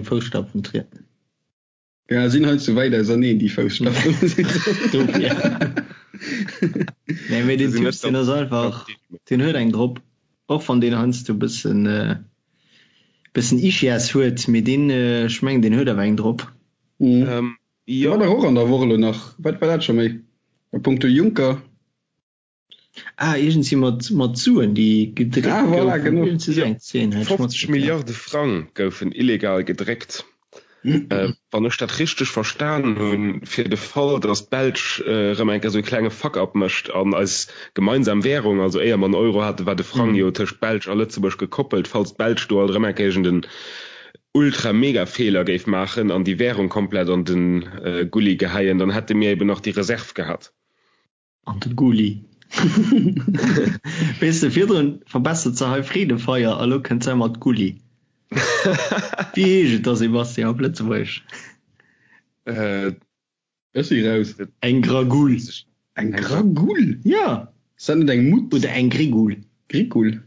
Fousstapfen trieden? Ja, sinn hei ze wäit auserneen, déi Fousstapfen. Dofir. Nee, mee deen Typ, deen ass einfach, deen huet eng drop. Och wann deen heiansdo e bëssen, bëssen Ischias huet, mee deen, ech mengen, deen huet awer eng drop. Mhm. Jo. War dach och an der Woch elo nach, wat war dat scho méi? A punkto Juncker. Ah, iergendwéi mat, mat Suen, déi gedréckt Ah, voilà, goufen. genau. Iergendwéi esou eng Zeen hat ech 50 matgekritt. Milliarde Frang goufen illegal gedréckt. Wann ech dat richteg verstan hunn, fir de Fall, datt d'Belsch erëm eng Kéier esou e klenge Fuck-up mécht an eis gemeinsam Währung, also éier mer den Euro haten, war de Frang jo tëscht Belsch a Lëtzebuerg gekoppelt, falls d'Belsch do alt erëm eng Kéier iergend en Ultra-Mega-Feeler géif maachen an déi Währung komplett an de Gulli geheien, dann hätte mir eben nach déi Reserv gehat. An de Gulli. Weess de, virdrun verbessert se hei Freedefeier a lo kënnt se mat Gulli. Wéi heescht et da, Sébastien, op Lëtzebuergesch? Ech si raus. Eng Gragull. Eng Gragull? Jo. Ass dat net eng Mutz? Oder eng Grigull. Grigull?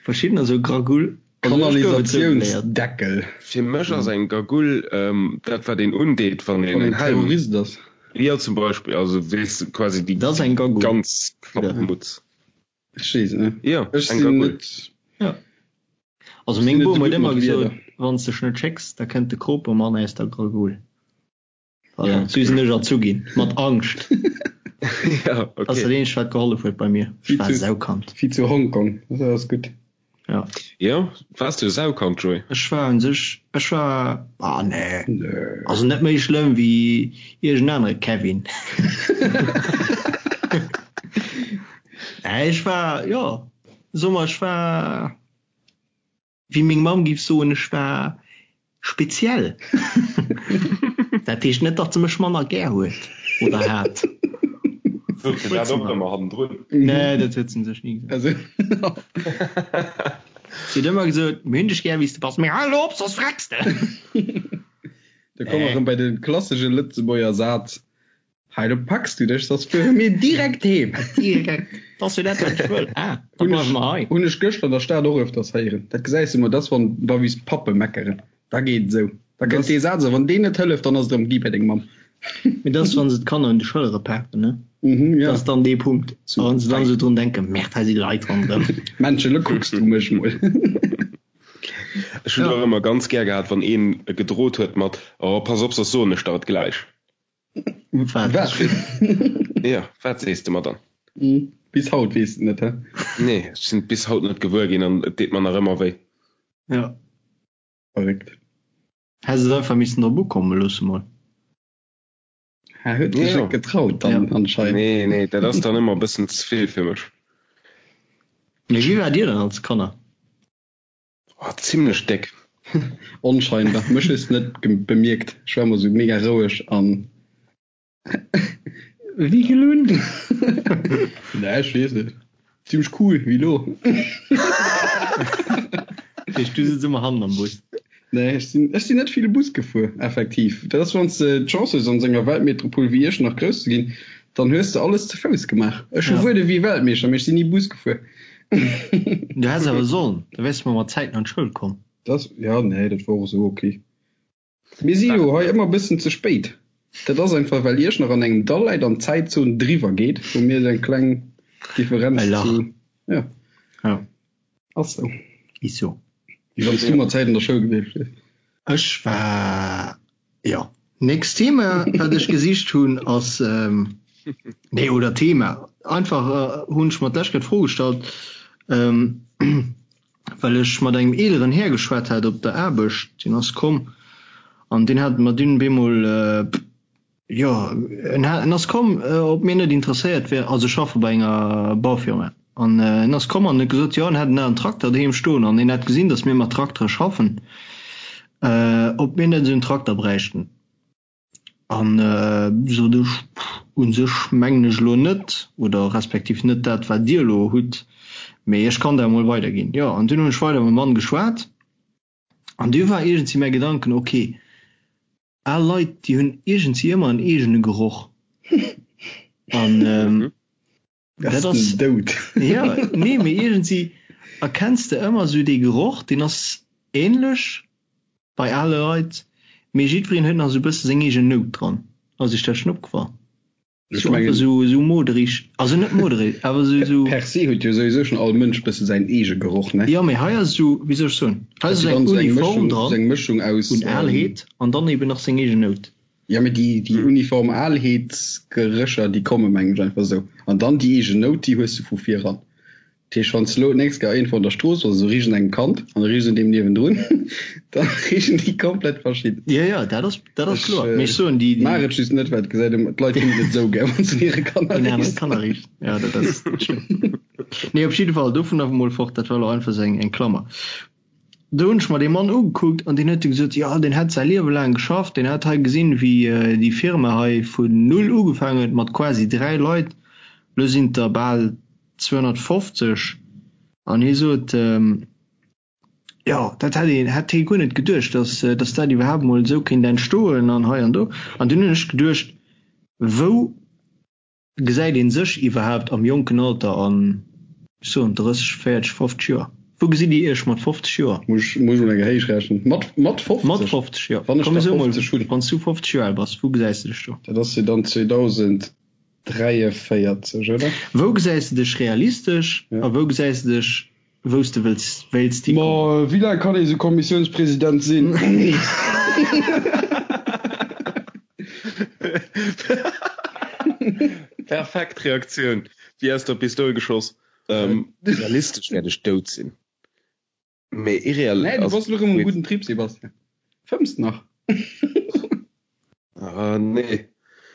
Verschiddener soe Gragull. Kanalisatiounsdeckel. Fir mech ass eng Gagull dat wat een undeet wann een en Helm. Terrorist ass. Jo zum Beispill, also weess de quasi déi ganz Klappmutz. Ech weess et net. Jo eng Gagull. Jo also meng Bom huet ëmmer gesot, wann s dech net schécks, da kënnt de Kropemann aus der Gragull. Voilà, sou sinn ech erzu ginn, mat Angscht. Ja, okay. Ass dat eenzegt wat gehollef huet bei mir. Ech war e Saukand. Wéi zu Hongkong, dat ass gutt. Ja. Jo, waars du e Saukand, Joé? Ech war un sech, ech war, ah nee. Nee. Also net méi schlëmm wéi iergend anere Kevin. Nee, ech war, jo, soe mer, ech war. Wéi meng Mamm giff soen, ech war speziell. Dat heescht net, datt se mech manner gär huet oder hat. Sot se dat och ëmmer hannendrun? Nee, dat huet se sech ni gesot. Si huet ëmmer gesot, Mir hunn dech gär, wéi s de bass, mee hal elo op, soss vrecks de! Da komme mer erëm bei de klassesche Lëtzebuerger Saz, Hei, do packs du dech, soss fuere mir direkt heem. Direkt. Dat ass jo dat, wat ech wëll. Ah, da bleiwe mer hei. Hunn ech gëschter an der Stad och öfters héieren. Dat gesäis du mol, dat ass, wann da wéi s Pappe meckeren. Da geet et esou. Da kënnt dee Saz, a wann deen net hëlleft, dann ass et erëm gi bei deng Mamm. Mee dat ass, wa se d'Kanner un de Schëllere paken, ne? Mhm, ja. Dat ass dann dee Punkt. A wann se dann esou drun denken, Merde, hei si Leit ronderëm. Männchen, elo kucks du mech mol. Ech hunn och ëmmer ganz gär gehat, wann een gedrot huet mat, Oh, pass op, soss soen ech der et gläich. Wat? Ja, wat sees de mer dann? Bis haut weess de net, hä? Nee, ech sinn et bis haut net gewuer ginn an et deet mer nach ëmmer wéi. Ja. Verréckt. Häss et einfach missen drop ukomme loosse mol. Hä, huet sech net getraut dann anscheinend. Nee, nee, dat ass dann ëmmer e bëssen ze vill fir mech. Mee wéi waart dir dann als Kanner? Oh, zimlech déck. Onscheinbar. Mech hues de net bemierkt. Ech war emmer sou mega roueg an. Wéi gelunn? Nee, ech weess net. Zimlech cool, wéi lo. Dat heescht, du sëtz ëmmer hannen am Bus? Nee, ech sinn, ech sinn net vill Bus gefuer, effektiv. Dat ass, wann s de d'Chance hues, an esou enger Weltmetropol wéi Iechternach grouss ze ginn, dann hues de alles ze Fouss gemaach. Ech hu wuel ewéi Weltmeeschter, mee ech sinn ni Bus gefuer. Du häss awer sollen, da wäers de mol mat Zäiten an d'Schoul komm. Das, ja, nee, dat wor och esou ok. Mir si jo hei ëmmer e bëssen ze spéit. Dat ass einfach, well Iechternach an engem Dall läit an d'Zäitzon driwwer geet, wou mir esou eng kleng Differenz E Lach. zu, ja. Ja. Ass sou. Is sou. Wéi wann s du mat Zäit an der Schoul gewiescht wiers. Ech war, jo. Nächst Thema, wat ech gesicht hunn, ass, nee, oder Thema, einfach hunn ech mer d'lescht Kéier d'Fro gestallt, well ech mat engem eeleren Här geschwat hat op der Aarbecht, deen ass komm an deen hat mer dunn bemol, Jo, en en ass komm, ob mir net interesséiert wär, also ech schaffe bei enger Baufirma, an en ass komm an huet gesot, jo en hätt en alen Trakter doheem stoen an en hätt gesinn, datt mir mat Traktere schaffen, ob mir net esou en Trakter bräichten. An sot ech, u sech mengen ech elo net, oder respektiv net dat wat Dir elo hutt, mee ech kann dat emol weiderginn. Jo, an dunn hunn ech weider mam Mann geschwat an du war iergendwéi mäi Gedanken, ok, Al Leit, déi hunn iergendwéi ëmmer en eegene Geroch. An dat ass. Dout. Jo, nee, mee iergendwéi erkenns de ëmmer esou dee Geroch, deen ass änlech bei ale Leit, mee jiddwereen huet nach esou e bësse seng eegen Nout dran. Ass iech dat schonn opgefall? Ech mengen, esou, esou moderig, also net moderig, awer esou, esou. Per se huet jo souwisou schon all Mënsch bësse säin eege Geroch, ne? Jo, mee hei ass esou, wéi soll ech soen, hei ass esou eng Uniform dran, eng Mëschung aus un Alheet an dann eben nach seng eegen Nout. Jo, mee déi, déi uniform Alheetsgerécher, déi komme mengen ech einfach esou. An dann déi eegen Nout, déi hues de vu viran. Dat heescht, wann s de elo d'nächst Kéier iergendwou an der Strooss bass, esou riicht un engem Kand an du riichs un deem niewendrun, da riichen déi komplett verschidden. Jo, jo, dat ass, dat ass kloer. Mee ech soen, déi, déi. Maach et just net, well et gesäit ëmmer, d'Leit hunn et net esou gär, wann s de un hire Kanner riichs. Un anere Kanner riichs, jo, dat ass, dat stëmmt. Nee, op jidde Fall, dovun awer mol fort, dat war elo einfach esou eng, eng Klammer. Do hunn ech mer dee Mann ugekuckt an deen huet du gesot, jo, deen hätt säi Liewe laang geschafft, deen hätt hei gesinn, wéi déi Firma hei vun null ugefaangen huet mat quasi 3 Leit, elo sinn et der bal 250. An hie sot, jo, dat hätt een, hätt hie guer net geduecht, datt, datt dat iwwerhaapt emol esou kéint entstoen an hei an do. An dunn hunn ech geduecht, wou Gesäit een sech iwwerhaapt am jonken Alter an, ech soen 30, 40, 50 Joer? Wou gesitt Dir Iech mat 50 Joer? Muss ech mol eng héich rechnen. Mat, mat 50? Mat 50, jo. Wann ech Komm da mir soe mol, 50 hunn. wann s du 50 Joer al bass, wou gesäis de dech do? Dat ass jo dann 2043, oder? Wou gesäis de dech realistesch Ja. a wou gesäis de dech, wou s de wëlls, wéilts Ma hikommen? wéi laang kann ee sou Kommissiounspresident sinn? Perfekt Reaktioun, wéi aus der Pistoul geschoss. Realistesch wäert ech dout sinn, mee irreal. Nee, du bass elo rëm um gudden Trip, Sebastian. Fëmms nach? Ah, nee.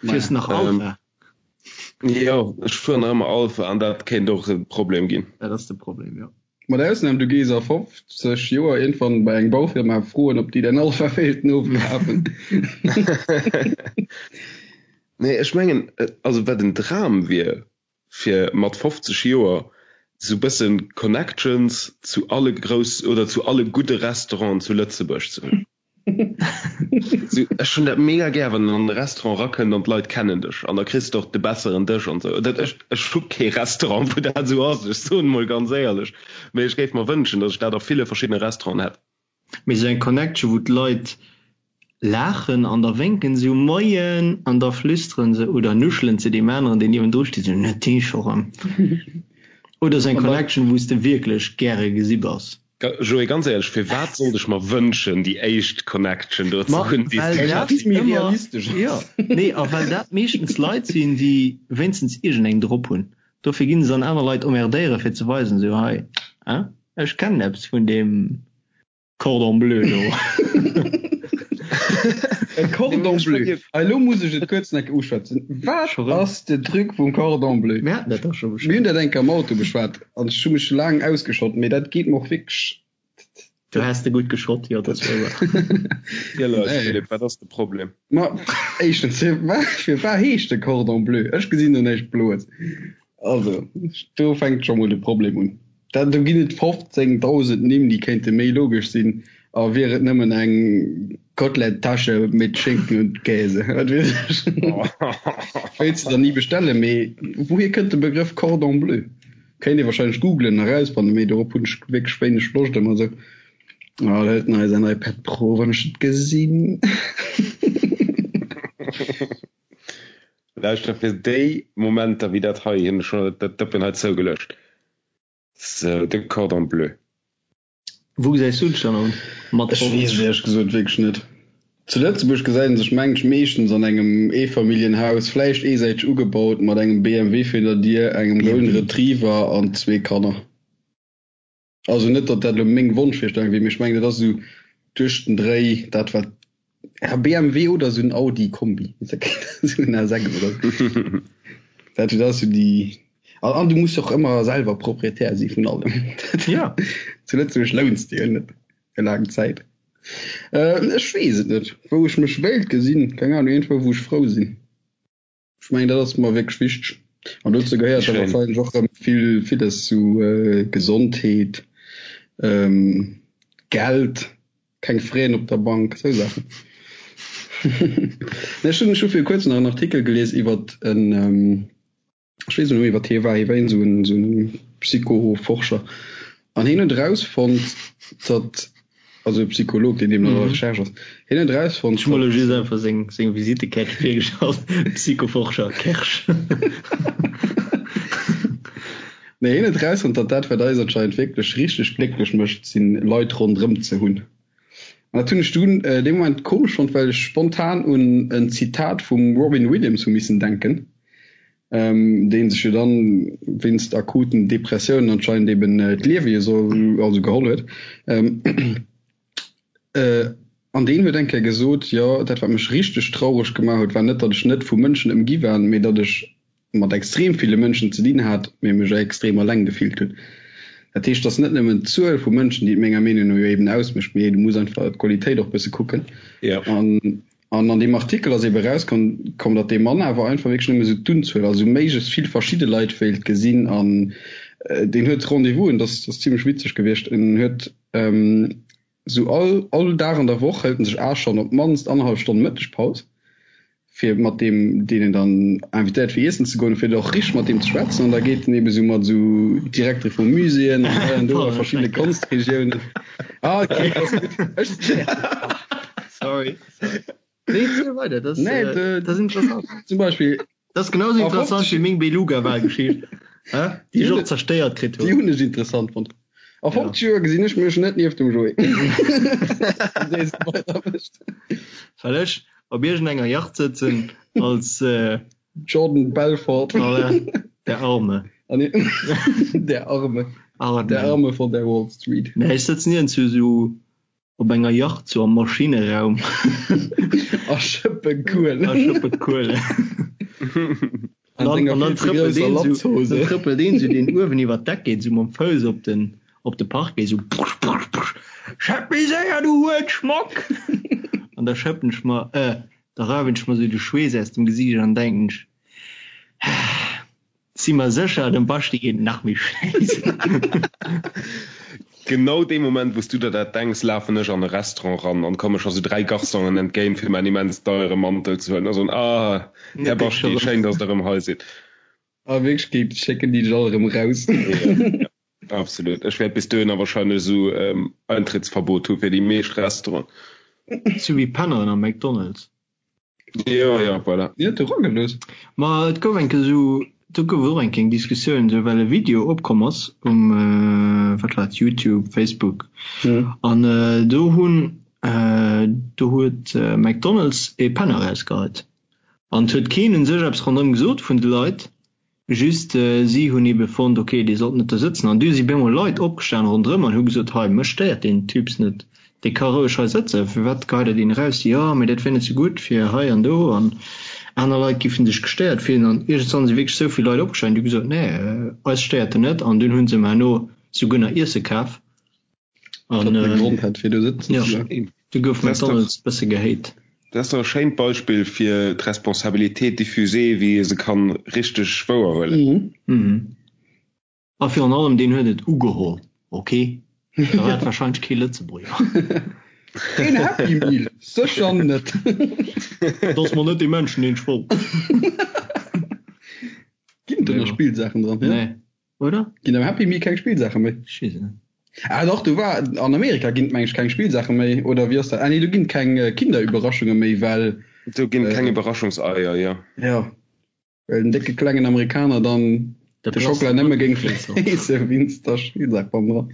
Fiers nach Alpha? Jo, ech fueren nach ëmmer Alpha an dat kéint och e Problem ginn. Dat ass de Problem, jo. Mat Ausnam du gees a 50 Joer iergendwann bei eng Baufirma froen ob déi däin Alpha wéilten ofkafen. Nee, ech mengen, also wat en Dram wier, fir mat 50 Joer sou bëssen Connections zu alle grouss oder zu alle gudde Restauranten zu Lëtzebuerg ze hunn. Ech hunn dat mega gär, wann een an e Restaurant rakënnt an d'Leit kennen dech an da kriss de och de besseren Dësch an esou. Dat ech ech hu kee Restaurant, wou dat esou ass, ech soen emol ganz éierlech, mee ech géif mer wënschen, datt ech dat a ville verschiddene Restauranten hätt. Mee esou eng Connection, wou d'Leit laachen an da wénken se Moien an da flüsteren se oder nuschelen se deem aneren, deen niewendru steet, esou, Net dee scho rëm. Oder esou eng Connection, wou s de wierklech gäre gesi bass. Joé, ganz éierlech, firwat sollt ech mer wënschen déi éischt Connection do ze Ma hunn, déi s well du dat häss? Méi ëmmer, realistesch jo, ass. nee, a well dat meeschtens Leit sinn, déi wéinstens iergendeng drop hunn. Dofir ginn se dann aner Leit emmerdéieren, fir ze weisen, esou, hei, hein, ech kennen eppes vun deem Cordon bleu do. E Cordon bleu, hei elo muss ech et kuerz nach uschwätzen. Wat Scho rëm? ass de Truc vum Cordon bleu? Mir haten dat dach scho Mir hunn beschwat. dat eng Kéier am Auto beschwat an ech hu mech laang ausgeschott, mee dat geet mer och wierklech. Du häss de gutt geschott, jo, dat ass wouer. Ziel eis, Nee. Philippe, wat ass de Problem? Ma éischtens, firwat firwat heescht de Cordon bleu? Ech gesinn do näischt Bloes. Also, do fänkt scho mol de Problem un. Dat, do ginn et 15.000 Nimm, déi kéinte méi logesch sinn, a wier et nëmmen eng Kotelett-Tasche mit Schinken und Käse, wat weess ech. Wéilts de der ni bestellen, mee wouhier kënnt de Begrëff Cordon bleu? Kéint ee wahrscheinlech googlen a rausfannen, mee dorop hunn ech wierklech wéineg Loscht ëmmer esou. Oh, da hëlt en hei säin iPad Pro, wann ech et gesinn. Lauschter, fir déi Momenter wéi dat hei hunn ech scho dat Dëppen hei zougeluecht. Sou, de Cordon bleu. Wou gesäis du dech dann an mat Ech weess 50? et éierlech gesot wierklech net. Zu Lëtzebuerg gesäit een sech mengen ech meeschtens an engem Eefamilljenhaus, vläicht eesäiteg ugebaut, mat engem BMW virun der Dier, engem Golden BMW? Retriever an zwee Kanner. Also net, datt dat elo meng Wonschvirstellung wier, mee ech mengen, dat ass esou duerch den Dréi dat wat, ja, BMW oder esou en Audi Kombi, esou en A6 oder esou. Dat dat ass esou déi, an an du muss och ëmmer selwer Proprietär si vun allem. Ja. Zu Lëtzebuerg louns de jo net fir laang Zäit. Ech weess et net, wou ech mech wéilt gesinn, keng Ahnung, iergendwou wou ech frou sinn. Ech mengen, dat ass mer wierklech wichteg. An dozou gehéiert da wahrscheinlech och erëm vill, villes zu Gesondheet, Geld, keng Fräen op der Bank, esou Saachen. Nee, ech hunn, ech hu viru kuerzem nach en Artikel gelies iwwert en, ech weess net méi, wat hie war, hie war iergend esou en, esou en Psychoforscher. An hien huet erausfonnt, datt Also e Psycholog, deen deemno an der Recherche ass. Hien huet erausfonnt, Ech hu mer elo just einfach seng, seng Visitekaart virgestallt, Psychoforscher Kersch. Nee, hien huet erausfonnt, datt dat, wat eis anscheinend wierklech richteg glécklech mécht, sinn Leit ronderëm ze hunn. An dat hunn ech dunn dee Moment komesch fonnt, well ech spontan un en Zitat vum Robin Williams hu missen denken. Deen sech jo dann wéinst akuten Depressiounen anscheinend eben d'Liewe jo soll, also geholl huet. An deen huet eng Kéier gesot, jo, dat wat mech richteg traureg gemaach huet, war net, datt ech net vu Mënschen ëmgi war, mee datt ech mat extrem ville Mënschen ze dinn hat, mee mech extrem alleng gefillt hunn. Dat heescht, et ass net nëmmen d'Zuel vu Mënschen, déi et menger Meenung no jo eben ausmécht, mee du muss einfach d'Qualitéit och bësse kucken. An An an deem Artikel ass ebe erauskomm, komm, datt dee Mann awer einfach wierklech nëmme sou d'Unzuel, also méiglechst vill verschidde Leit wéilt gesinn. An deen huet Rendez-vousen, dat ass zimlech witzeg gewiescht, en huet sou all, all Dag an der Woch hëlt en sech 8 Stonnen, op d'mannst annerhallef Stonn Mëttegpaus, fir mat deem, deen en dann invitéiert fir iessen ze goen, fir och richteg mat deem ze schwätzen. An da geet en ebe sou mat sou Direktere vu Muséeën an hei an do a verschiddene Konstregiounen. Ah, okay, ass gutt. Ech. Sorry. Nee, ziel weiter. Das, nee, äh, de, das ist interessant. Zum Beispiel. Das ist genauso interessant wie meng Beluga-Wahlgeschicht. Déi ech och zerstéiert kritt hunn. Déi hunn ech interessant fonnt. A 50 Joer gesinn ech mech net nieft dem Joé. Well ech op iergendenger Yacht sëtzen als äh, Jordan Belfort. Voilà, der Arme. Ah, nee. Der Arme. Arme. Der Arme von der Wall Street. Nee, ech sëtzen iergendwou sou Op enger Yacht sou am Maschineraum. A schëppe Kuelen. A schëppe Kuelen. An senger An dann vill ze trëppelt grousser een sou, Latzhose. dann trëppelt een sou deen uewen iwwer d'Deck geet, sou mam Fouss op den, op de Parquet, sou prusch, prusch, prusch, Schëpp méi séier, du Huelschmock! An da schëppen ech mer, äh, da rauwen ech mer sou de Schweess aus dem Gesiicht an denken ech, Si mer sécher, dem Baschti geet et nach méi schlecht. Genau dee Moment wous du der dat denks, lafen ech an e Restaurant ran an komme scho sou 3 Garçonen entgéint fir mäin immens deiere Mantel ze huelen a soen, Ah, Här Baschti, schéin dass der erëm hei sidd. A Wierklechkeet schécken déi dech all erëm raus. Jo, absolut. Ech wäert bis dohinner wahrscheinlech esou Eintrittsverbot hu fir déi meescht Restauranten. Sou wéi Penneren am McDonald's. Jo, jo, voilà. Déi huet e ragelooss. Ma et gouf eng Kéier esou, do gouf et och eng kleng Diskussioun esou, well e Video opkomm ass um, wat war et, YouTube, Facebook, an do hunn, do huet McDonald's e Penner erausgeheit an et huet keen u sech eppes ronderëm gesot vun de Leit. Just si hunn ebe fonnt, ok, dee sollt net do sëtzen. An du si bemol Leit opgestan ronderëm an hu gesot, hei, mech stéiert deen Typs net, dee ka roueg hei sëtzen, firwat geheit der deen eraus? Jo, mee dat wär net sou gutt fir hei an do an aner Leit giffen sech gestéiert fillen. An iergendwann si wierklech sou vill Leit opgestan, déi hu gesot, nee, eis stéiert en net. An dunn hu se em herno souguer nach Iesse kaf. An äh, Grond hat fir do sëtzen ja, du gouf McDonald's bësse gehéit. Dat ass doch e schéint Beispill fir d'Responsabilité diffusée, wéi ee se kann richteg wouerhuelen. Mhm. Mhm. A virun allem deen huet et ugeholl, ok? Da war et wahrscheinlech kee Lëtzebuerger. Een Happy Meal? Sécher net. Dat ass mol net dee Menschen deen ech wollt. Ginn do nach Spillsaachen dran? Nee. Oder? Ginn am Happy Meal keng Spillsaache méi? Ech weess et net. Ah dach, do war, an Amerika ginn et meng ech keng Spillsaache méi, oder wéi ass dat? Ah nee, do ginn et keng Kinderüberraschunge méi, well. Do ginn et keng Überraschungseier, jo. Jo, well den décke klengen Amerikaner dann de Schockela nëmme géing friesse wéinst der Spillsaach bannendran.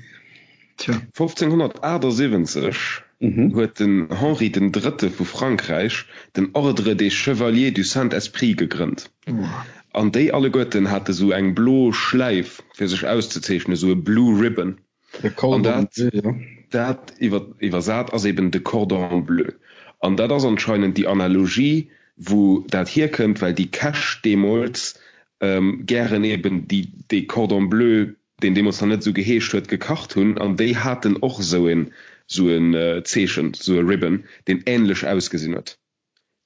Tja. 1578 huet den Henri den Drëtte vu Frankräich den Ordre des Chevaliers du Saint-Esprit gegrënnt. An déi alleguerten hate sou eng blo Schläif fir sech auszezeechnen, sou e Blue Ribbon. An dat, dat iwwersat ass eben de Cordon bleu. An dat ass anscheinend déi Analogie, wou dat hierkënnt, well déi Käch deemools gären eben déi, dee Cordon bleu, deen deemools nach net esou geheescht huet, gekacht hunn. An déi haten och esou een, esou en Zeechen, esou e Ribbon, deen änlech ausgesinn huet.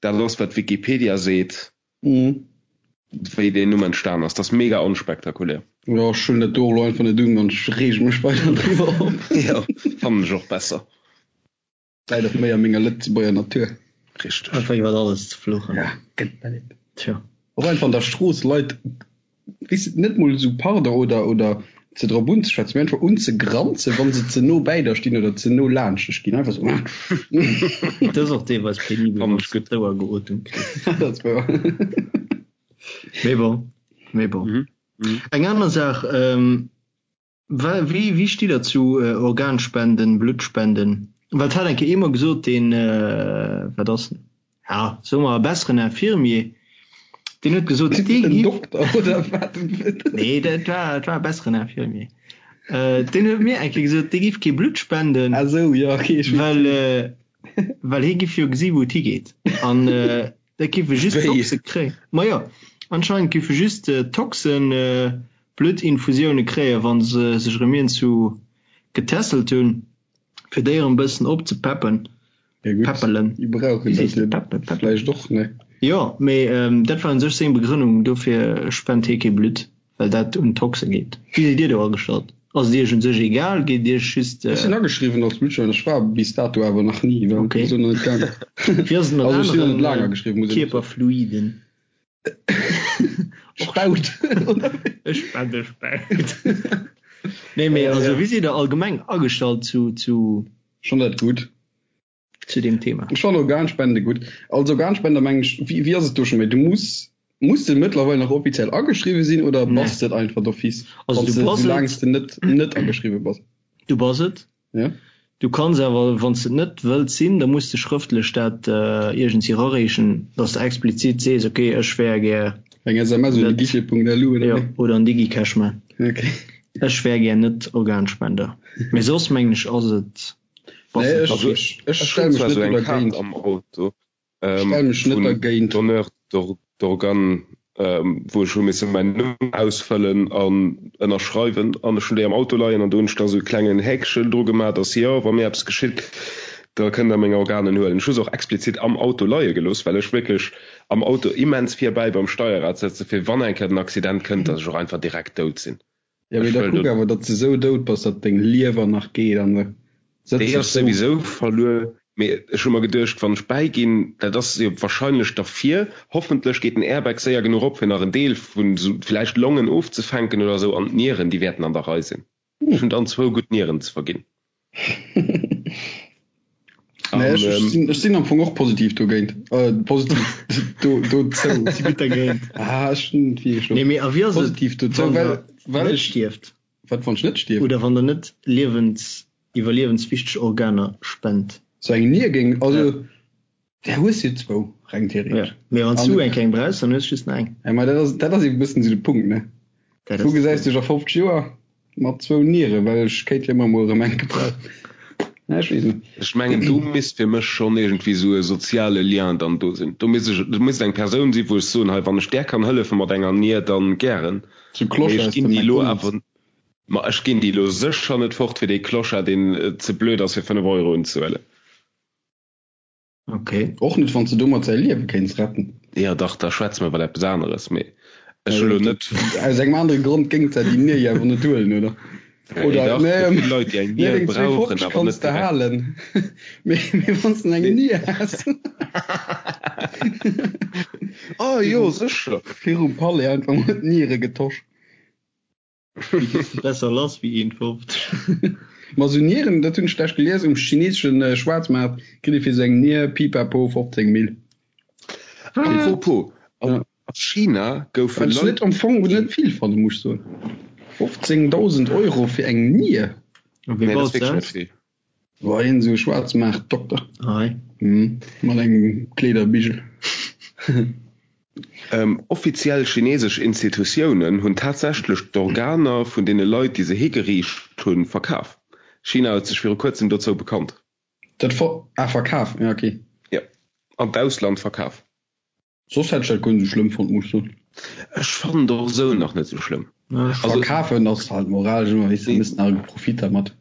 Dat ass wat Wikipedia seet, wéi deen Numm entstan ass. Dat ass mega onspektakulär. Jo, ech huelen dat do och elo einfach net un an ech reege mech weider driwwer op. Jo, fannen ech och besser. Läit och méi a menger Lëtzebuerger Natur. Richteg. Einfach iwwert alles ze fluchen. Ja, gëtt mer net. Tjo. Och einfach an der Strooss Leit, weess de, net mol esou Pardon oder oder ze drop unzeschwätzen, mee einfach unzegranzen, wa se ze no bäi der stinn oder ze no laanscht dech ginn. Einfach esou. Dat ass och deelweis penibel, Fannen wann ech s du gutt. d'Ouer geotemt kriss. Dat ass wouer. Mee bon, mee bon. Mhm. Mhm. Eng aner Saach, ähm, Wéi wéi stitt der zu Organspenden, Bluttspenden? Well et hat eng Kéier ee mer gesot, deen, wat ass en, ja soe mer e besseren Infirmier. Deen huet gesot, dee En giff. Dokter oder wat? Nee, dat war, dat war e besseren Infirmier. Äh, deen huet mir eng Kéier gesot, dee giff kee Blutt spenden, Ah sou, jo, okay, ech weess. well, äh, well hie giff jo gesi wou et higeet. An äh, dat giffe just Wéi? Toxe kréien. Ma jo, anscheinend giffe just äh, Toxen äh, Bluttinfusioune kréien, wa se sech erëm iergendwou getässelt hunn, fir déi erëm e bëssen opzepeppen. Ja gutt, Peppelen. déi brauchen Wéi dat sees de? jo Peppen, peppen. vläicht och, ne? Jo, mee dat war un sech seng Begrënnung, dofir spent hie kee Blutt, well dat un d'Toxe geet. Wéi sidd Dir do agestallt? Ass et Iech un sech egal? Geet et Iech just. Ech sinn ageschriwwen als Blutspender, ech war bis dato awer nach ni, well Okay. et ass nach net gaangen. Wéi ass et mat Also ech sinn nach net laang anere ageschriwwen, muss een och soen. Kierperfluiden? Spaut, oder wéi? Ech spende Spaut. Nee, mee also wéi sidd Der allgemeng agestallt zu, zu. Schon dat gutt. Zu deem Thema? Ech fannen Organspende gutt. Als Organspender mengen ech, wéi, wéi ass et do scho méi? Du muss, muss de mëttlerweil nach offiziell ageschriwwe sinn oder Nee. bass de et einfach d'office, Also wann du s de, bass et. soulaang s de net, net ageschriwwe bass? Du bass et. Ja. Du kanns awer, wann s de et net wëlls sinn, da muss de schrëftlech dat iergendwéi erareechen, dass de explizit sees, ok, ech wär gär Eng SMS un net, guichet.lu oder jo, wéi? oder an DigiCash man, Ok. ech wär gär net Organspender. Mee soss mengen ech ass et, bass Nee, de ech, Also ech, ech ech stell hunn mech zwar net esou do eng Kaart dergéint. am Auto, Ech stell mech net vun dergéint. Donneur d'organes, wou ech hu misse mäin Numm ausfëllen an ënnerschreiwen an ech hunn déi am Auto leien an do hunn ech da sou e klengen Häkchen dru gemaach, dass jo, wa mir eppes geschitt, da kënnt der meng Organen huelen. Ech hu se och explizit am Auto leie gelooss, well ech wierklech am Auto immens virbäi beim Steierrad sëtze fir wann eng Kéier den Accident kënnt, dass ech och einfach direkt dout sinn. Ja, mee Ech da wëll kuck do. awer, datt s de sou dout bass, datt deng Liewer nach geet an da sëtz Déi ech ass sou. souwisou verluer, mee ech hu mer geduecht, wann ech bäiginn, dat ass jo wahrscheinlech derfir, hoffentlech geet den Airbag séier genuch op, fir nach en Deel vun sou villäicht Longen ofzefänken oder sou, an d'Nieren, déi wäerten an der Rei sinn. Ech hunn dann zwou gutt Nieren ze verginn. Nee, ech, ech sinn, ech sinn am Fong och positiv dogéint. Äh, positiv do, dozou. Si gutt dergéint. Ah, ech hunn et wierklech Nee, mee a wéi ass et, positiv dozou, wann well, der well net ech, stierft? wat wann ech net stierf? Oder wann der net liewens, iwwerliewenswichteg Organer spent? Sou eng Nier géing, Ja. also, där hues jo zwou, reng Ja. theoretesch. Mee wann s An, du eng keng brauchs, dann hues du just nach eng. ja, ma dat ass, dat ass eben e bëssen esou de Punkt, ne? Dat Wou ass de gesäis Punkt. du dech a 50 Joer? Mat zwou Nieren, well ech kéint jo ëmmer mol erëm eng gebrauchen. Ja, ech weess net. Ech mengen, do misst fir mech schonn iergendwéi esou e soziale Lien dann do sinn. Do misst ech, do misst eng Persoun sinn, wou ech soen, hei, wann ech där kann hëllefe mat enger Nier, dann gären. Sou Mee Clochard ech aus ginn dem déi elo McDonald's. awer, ma ech ginn déi elo sécher net fort fir dee Clochard, deen ze blöd ass fir 5 Euro unzehuelen. Ok. Och net wann s de domat säi Liewe kéints retten. Jo dach, da schwätze mer iwwer eppes aneres, mee ech hu lo net. Aus engem anere Grond géings de déi Nier jo awer net huelen, oder? Nee, Oder dach, nee, gëtt vill Leit, déi eng nee, Nier deng brauchen, 2,50 awer kanns net de direkt. halen, mee, mee wann s de eng Nee. Nier häss. Oh jo, sécher. Virum Palais einfach mol d'Niere getosch. Besser lass wéi 1,50. Ma sou Nieren, dat hunn ech lech gelies, um chineseschen Schwaarzmaart kritt ee fir sou eng Nier pipapo 15 Mille. Apropos, a China goufe Wat ech Leit. net am Fong net vill fannen, muss ech soen. 15.000 Euro fir eng Nier? A wee Nee, dat ass baut se wierklech net aus? vill. War een sou Schwaarzmaartdokter. Ei. Mat engem Kleederbigel. Offiziell chinesesch Institutiounen hunn tatsächlech d'Organer vun deene Leit, déi se higeriicht hunn, verkaf. China huet sech viru kuerzem dozou bekannt. Dat ver, ah verkaf, ja ok. Jo, an d'Ausland verkaf. Soss hätt ech dat guer net sou schlëmm fonnt, muss ech soen. Ech fannen et och esou nach net sou schlëmm. Also. Verkafen ass halt moralesch ëmmer, weess de, méchs nach e Profit dermat.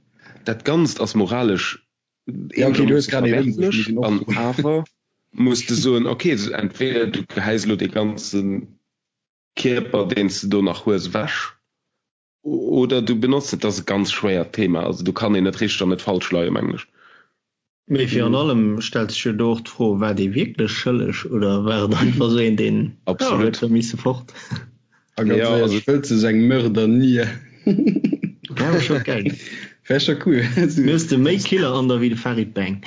Dat Ganzt ass moralesch Ja, okay, du hues eenegermoosse grad een ëmbruecht, verwerflech muss een och an soen. awer muss de soen, okay, entweder du gehäis elo dee ganze Kierper, deen s de do nach hues, ewech Oder du benotz et. Dat ass e ganz schwéiert Thema. Also do kann een net richteg an net falsch leien, mengen ech. Mee virun allem stellt sech jo do och d'Fro, War dee wierklech schëlleg oder war et einfach esou een, deen, jo, Absolut. huet da misse fort? A ganz Jo, éierlech, also. wëlls de sou eng Mördernier? Wär awer scho geil. Wär scho cool. Mir hues de méi Killer an der wéi de Farid Bang.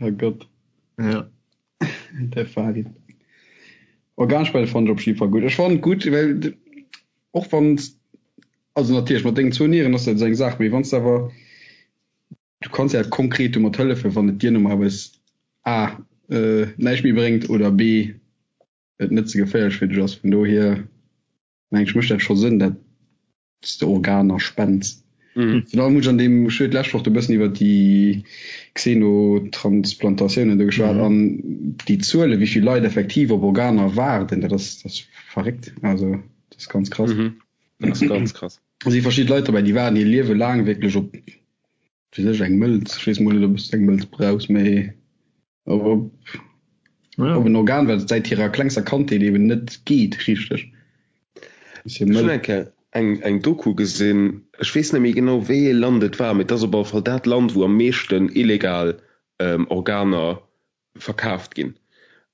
Oh Gott. Ja. Der Farid. Organspende fand ech op jeden Fall gutt. Ech fand gutt, well och wann also natierlech mat dengen zwou Nieren ass dat esou eng Saach, mee wann s de awer du kanns ja konkret domat hëllefen, wann et dir normal A. näischt méi bréngt oder B et net ze geféierlech fir dech ass. Vun dohier mengen ech mécht dat scho Sënn, dat s de Organer spends. Virun allem hunn ech an deem, ech hu jo d'lescht Woch do e bëssen iwwer déi Xenotransplantatiounen do geschwat an déi Zuele wéi vill Leit effektiv op Organer waarden, dat ass, dat ass verréckt. Also dat ass ganz krass. Dat ass ganz krass. Do si verschidde Leit dobäi, déi waarden hir Liewe laang wierklech op, fir sech eng Mëlz, ech weess mol net, ob s de eng Mëlz brauchs, mee op, op en Organ, wat et säit hirer klengster Kandheet eben net geet richteg. Ech hunn eng Kéier eng, eng Doku gesinn, ech weess net méi genau wéi ee Land et war, mee et ass op alle Fall dat Land, wou am meeschten illegal Organer verkaaft ginn.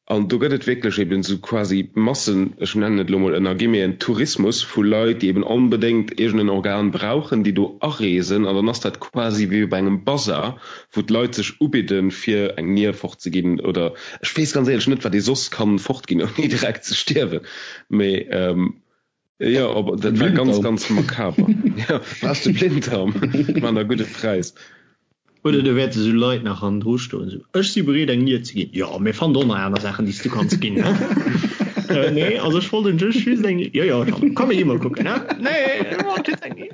An do gëtt et wierklech eben esou quasi Massen, ech nennen et elo mol ënner Guillemeten, Tourismus vu Leit, déi eben onbedéngt iergend en Organ brauchen, déi do areesen. An dann ass dat quasi wéi op engem Bazar, wou d'Leit sech ubidden, fir eng Nier fortzeginn oder ech weess ganz éierlech net, wat ee soss kann fortginn, ouni direkt ze stierwen. Mee jo, op, dat war ganz, ganz makaber. Jo, brauchs de Blinddarm? Maan der gudde Präis. Oder do wäerte sou Leit nach hannendru stoen, sou, Ech si bereet eng Nier ze ginn. Jo, mir fannen och nach aner Saachen, déi s du kanns ginn, he? Nee, also ech wollt just just eng Nier. Jo, jo, Jeannot, komm mir gi mol kucken, he? Nee, ech wollt just eng Nier.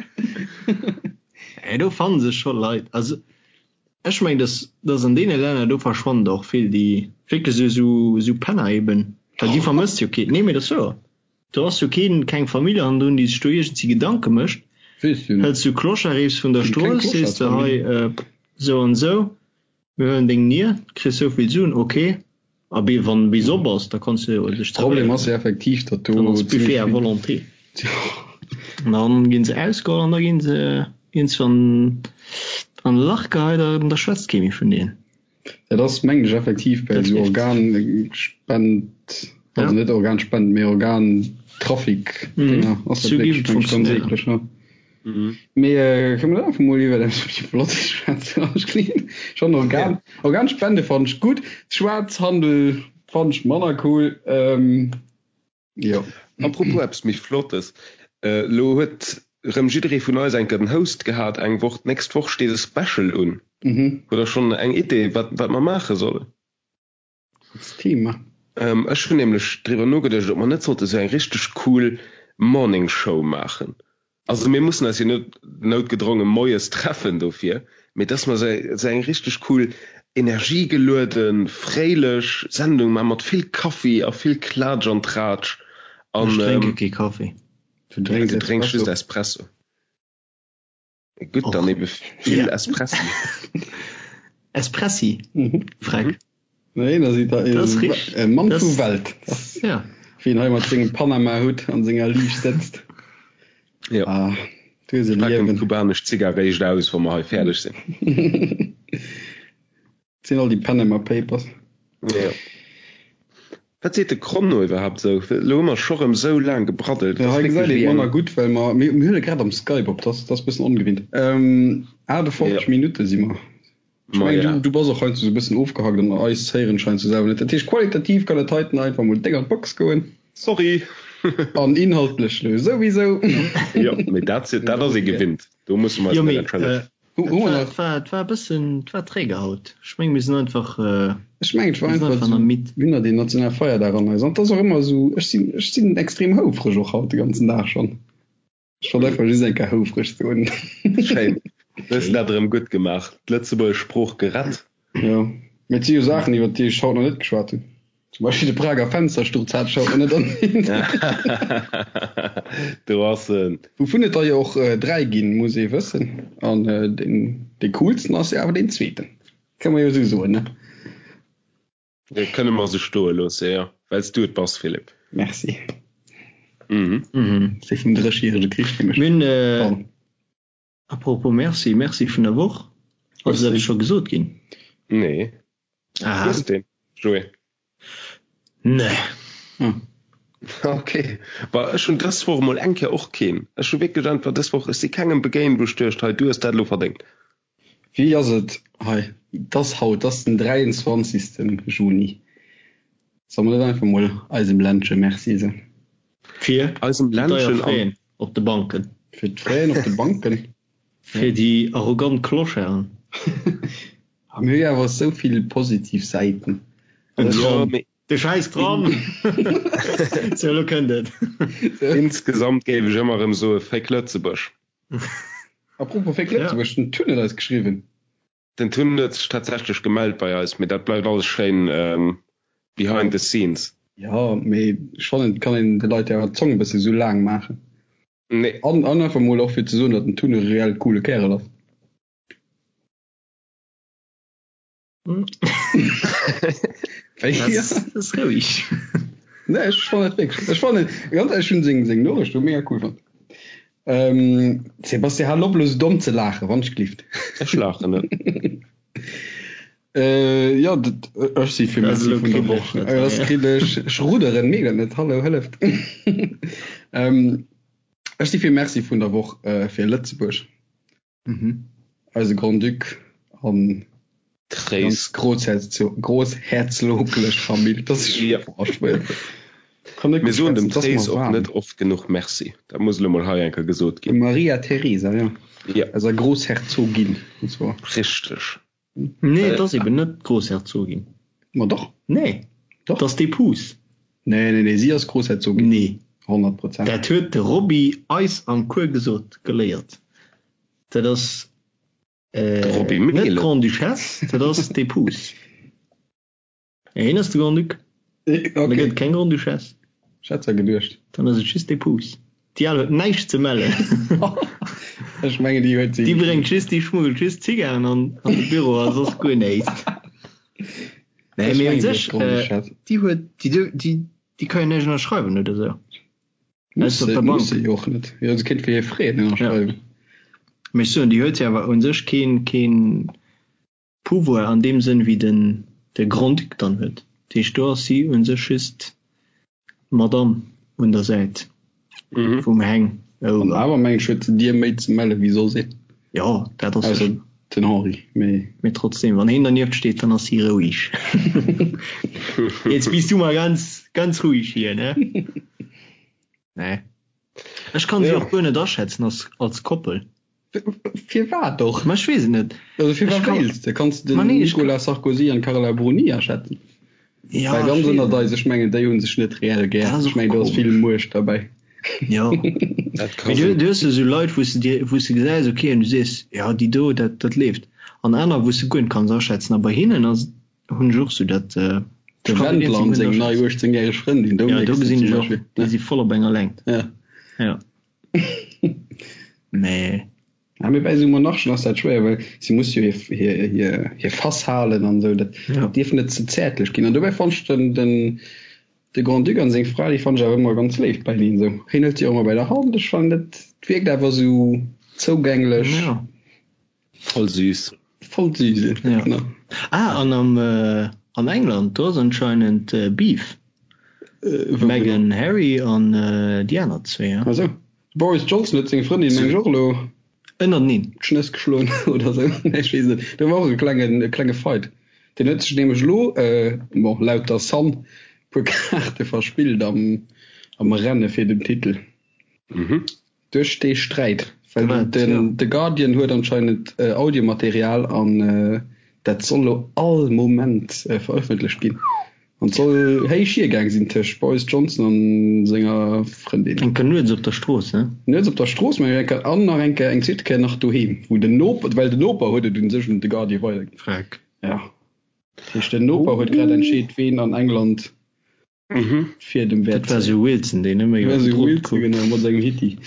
Nee, do fanne sech scho Leit. Also ech mengen, dass, dass an deene Länner, do verschwannen der och vill, déi wierklech sou, sou Penner eben, well déi vermësst jo keen. Nee, mee dat ass wouer. Do ass jo keen, keng Famill hannendrun, déi sech do iergendsi Gedanke mécht. Weess jo net. Hëls du Clochard eefs vun der Sinn keng Strooss, sees de hei, Clochardsfamill. sou an sou, mir huelen deng Nier, kriss sou vill Suen, ok. A bee wann bis op ass, da kanns du jo dech Problem ass jo effektiv, datt do Dann ass zimmlech Buffet à vill. volonté. An dann ginn se ausgeholl an da ginn se iergendswann an e Lach geheit an da schwätzt kee méi vun deenen. Dat ass mengen ech effektiv bei esou Organspend, also net Organspend, mee Organtrafic Dinger ass dat wierklech mengen ech ganz eekleg ne. Mee kënne mer einfach mol iwwer eppes méi Flottes schwätzen? Ech kleen schonn Organ Organspende fannen ech gutt, Schwaarzhandel fannen ech manner cool. Jo. Apropos eppes méi Flottes, Elo huet rëm jidderee vun eis eng Kéier den Houst gehat eng Woch. D'nächst Woch steet e Special un. Hutt der schonn eng Idee, wat wat mer maache sollen? Als Thema? Ech hunn nämlech driwwer nogeduecht, ob mer net sollte sou eng richteg cool Morning Show maachen. Also mir mussen eis jo net noutgedronge moies treffen dofir, mee dass mer sou eng richteg cool energiegelueden, fréilech Sendung man mat vill Kaffi a vill Klatsch an Tratsch an. Ech drénke kee Kaffi. Du drénks Du drénks just Espresso. Gutt, dann ebe vill Espressi. Espressi? Freck. Nee, da seet der Das ist e Mann vu Welt. Ja. Wien hei mat sengem Panama-Hutt an senger Liicht sëtzt. Ja. Ah, du hues e Packen Liewen. d'kubanesch Zigar réischt aus, wa mer hei fäerdeg sinn. Sinn all déi Panama Papers. Ja. Wat seet de Chrono iwwerhaapt esou? Elo hu mer scho rëm esou laang gebraddelt. Ja, hei gesäit een et manner gutt, well mer, mir huele grad am Skype op, dat ass e bëssen ongewinnt. 58 Minutte si mer. Ech mengen, du, du bass och heiansdo esou e bëssen ofgehackt an eis héieren scheinst du selwer net. Dat heescht, qualitativ kann dat heiten einfach mol déck an d'Box goen. Sorry! An inhaltlech lo souwisou. Jo, mee dat, dat ass ee gewinnt. Do musse mer eis Jo, net mee entschëllegen. Hu, hu mer et war, nach. et war, et war e bëssen, et war träge haut. Ech meng, mir sinn einfach, Ech mengen, et war mir sinn einfach einfach nach esou, midd. mir hunn nach deen nationale Feierdag an eis. An et ass och ëmmer esou, ech sinn, ech sinn extrem houfreg och haut de ganzen Dag schonn. Ech wollt einfach just eng Kéier houfreg soen. Schéin. Du hues dat erëm gutt gemaach. D'lëtzebuergesch Sprooch gerett. Jo, mee et si jo Saachen, iwwer déi ech haut nach net geschwat hunn. Zum Beispill de Prager Fenstersturz hat ech haut nach net erwähnt. Do ass en. Wouvun et der jo och 3 ginn, muss ee wëssen. An deen, dee coolsten ass jo awer deen zweeten. Kënne mer jo esou soen, ne? Dat kënne mer sou stoe loosse, jo. Well s du et bass, Philippe. Merci. Mhm. Mhm. Dee vum Dréchjärege Krich nämlech. Mir hunn, äh, Pardon. apropos Merci, Merci vun der Woch. Ass dat scho gesot ginn? Nee. Aha. Hues deen, Joé? Nee. Hm. Okay. Bah, ech hunn dës Woch emol eng Kéier och keen. Ech hu wierklech einfach dës Woch, ech si kengem begéint, wou ech duecht, hei, du hues dat elo verdéngt. Wéi ass et hei? Et ass haut, et ass den 23. Juni. Solle mer net einfach mol eisem Ländche Merci soen? Fir Eisem déi deier Ländchen an. Fräen op de Banken. Fir d'Fräen op de Banken. Fir déi arrogant Clocharden. A mir hu jo awer esou vill positiv Säiten. Den Tram. De schäiss Tram! Sou, elo kënnt et. Insgesamt géif ech ëmmer erëm soe Féck Lëtzebuerg. Apropos Féck Lëtzebuerg, den Tun huet eis geschriwwen. Den Tun huet sech tatsächlech gemellt bei eis, mee dat bleift alles schéin behind the scenes. Jo, mee ech fannen, et kann een de Leit jo awer d'Zong e bësse sou laang maachen. Nee. An einfach mol och fir ze soen, datt den Tun e reell coole Kärel ass. Das roueg. Nee, ech fannen et wierklech. Ech fannen, ganz ehrlech, ech hunn seng, seng Noriicht do mega cool fonnt. Ähm, Sebastian, hal op elo sou domm ze laachen, wann ech glift. Ech laachen net. Äh, jo, dat, ech si fir Das Messi elo vun der kriddeg, Woch. dat Äh, war das ja. kriddeg. Ech rudderen, mierkt dat net. Hallo, hëlleft. Ähm, ech si fir Merci vun der Woch, äh, fir Lëtzebuerg. Mhm. Eise Grand-Duc an Tréis. ganz großherzoglech Famill. Das ist Ja. boah, schwéier. Kann net Mir gutt soen dem schwätzen, 't ass Tréis mer och waarm. net oft genuch Merci. Dat muss elo mol hei eng Kéier gesot ginn. Maria Theresa, ja. Ja. Eiser Großherzogin, und zwar. Richteg. Nee, et ass eben net d'Großherzogin. Ma doch. Nee, Doch. 't ass d'Epouse. Nee, nee, nee, si ass Großherzogin. Nee. 100 Prozent. Dat huet de Roby eis am Cours gesot, geléiert. Dat ass De Roby net Mehlen. d'Grande-Duchesse, dat ass d'Epouse. Ja, hien ass de Grand-Duc. Okay. Da gëtt et keng Grande-Duchesse. Ech hat zwar geduecht. Dann ass et just d'Epouse. Déi al huet näischt ze mellen. Ech mengen, déi huet si. Déi bréngt just, déi schmuggelt just Zigaren an an de Büro a soss guer näischt. Nee, Ech mee un mengen, déi ass sech, Grande-Duchesse. déi huet, déi, déi, déi ka jo näischt ënnerschreiwen oder sou. Muss Ausser op se, der muss Bank. se jo och net. Jo, se kéint fir hir Freeën ënnerschreiwen. Ja. Mee ech soen, déi huet jo awer un sech keen, keen. Pouvoir an deem Sënn wéi den de Grand-Duc dann huet. Dat heescht, do ass si u sech just d'Madame un der Säit vum Heng. An awer mengen ech huet se dir méi ze melle wéi soss een. Jo, dat ass Ausser sécher. den Henri, mee. Mee trotzdem, wann heen dernieft steet, dann ass si roueg. Jetzt bist du mal ganz, ganz ruhig hier, ne? Nee. Ech kann si och guer net aschätzen als, als Koppel. Firwat och? Ma ech weess et net. Also firwat Ech kann- wéilst de? Kanns de Ma den nee, ech Nicolas Sarkozy an d'Carla Bruni aschätzen? Ja, Well ech ganz weess ënnert et eis, ech mengen déi hunn sech net reell gär. Dat ass Ech och mengen do ass komesch. vill Muecht derbäi. Jo. Dat ka Mee du, sinn. du hues jo sou Leit, wou s de dir, wou s de gesäis, okay, an du sees, ja, déi do, dat, dat leeft. An aner, wou s de guer net kanns aschätzen. A bei hinnen ass, hunn ech och sou dat, De ech kann déi Wendler iergendwéi an guer net seng nei aschätzen. 18 järeg Frëndin, do Ja, do mierks de gesinn zum ech och, Beispill, déi ne? si voll op enger Längt. Ja. Ja. Mee. Ja, mee bei esou Monarchen ass dat schwéier, well si muss jo hir, hir, hir, hir Fass halen an esou. Dat Ja. dierf net ze zäertlech ginn. An dobäi fannt ech den, den, de Grand-Duc an seng Fra, déi fannt ech awer ëmmer ganz léif beieneen esou. Hien hëlt si och ëmmer bei der Hand. Ech fannen, dat wierkt awer esou zougänglech. Ja. Voll süß. Voll süß, Ja. genau. Ah, an am, an England, do ass anscheinend Beef. Äh, wou Meghan, genau? Harry an déi aner zwee, ja. Ah sou. Boris Johnson huet seng Frëndin, meng ech, och elo Ënnerteneen. d'Schnëss geschloen oder sou. Nee, ech weess net. Do war och e klengen, e klenge Fight. Deen huet sech nämlech elo, bon, laut der Sun, e puer Kaarte verspillt am, am Renne fir den Titel. Mhm. Duerch dee Sträit, well Wat, den ja. The Guardian huet anscheinend Audiomaterial an dat soll lo all Moment verëffentlecht ginn. An et soll héich hiergaang sinn tëscht Boris Johnson an senger Frëndin. Eng Kéier nuets op der Strooss, ne? Nuets op der Strooss, mä eng Kéier an nach eng Kéier, eng zweet Kéier nach doheem, wou den Noper, well den Noper huet et un sech un The Guardian weiderginn. Freck. Ja. Dat heescht, den Noper huet grad entscheet, ween an England Mhm. Fir dem Dat Wäert war zéien. sou Wilson, deen ëmmer War iwwer den sou Drot Wilson, kuckt. genau, mat sengem Hitti.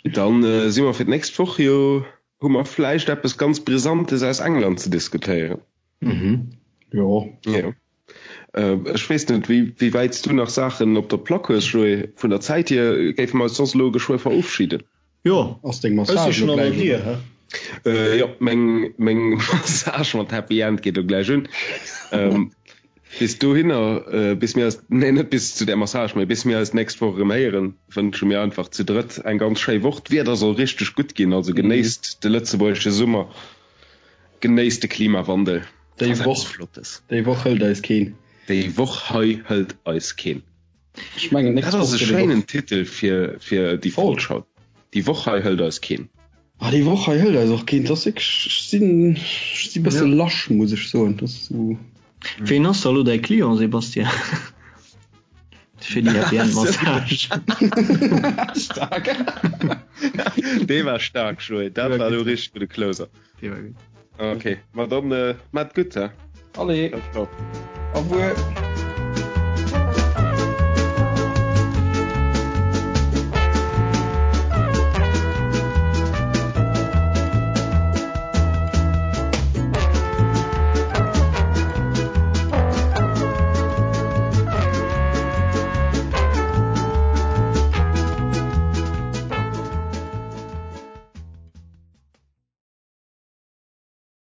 Dann äh, si mer fir d'nächst Woch jo, hu mer vläicht eppes ganz Brisantes aus England ze diskutéieren. Mhm. Jo. Jo. Äh, ech weess net, wéi, wéi wäit s du nach Saachen op der Plack hues, Joé. Vun der Zäit hier géife mer eis soss elo geschwë verofschiden. Jo, Ass deng ech si Massage schon elo an der gläich Dier, un? hä? Äh, jo, meng, meng Massage mat Happy End geet elo gläich un. Ähm, Bis dohinner, bis mir eis, nee net bis zu där Massage, mee bis mir eis d'nächst Woch erëm héieren, wënsche mir einfach zu drëtt eng ganz schéi Woch. D'Wieder soll richteg gutt ginn, also genéisst de lëtzebuergesche Summer, genéisst de Klimawandel. Déi Ass eppes Woch, Flottes. déi Woch hëlt eis keen. Déi Woch hei hëlt eis keen. Ech mengen, Dat d'nächst ass Woch e gëtt et och. schéinen Titel fir, fir déi Folg. Folg haut. Déi Woch hei hëlt eis keen. Ah, déi Woch hei hëlt eis och keen. Dat ass wierklech, ech sinn, ech si bësse Ja. lasch, muss ech soen. Dat ass esou. Ween ass da lo däi Client, Sébastien? Fir déi Happy End Massage. Stark. Dee war stark, Joé. Dat war elo richteg gudde Closer. Dee war gutt. Okay, ma dann äh, maat gutt, hä? Allez, Ciao, ciao. au revoir.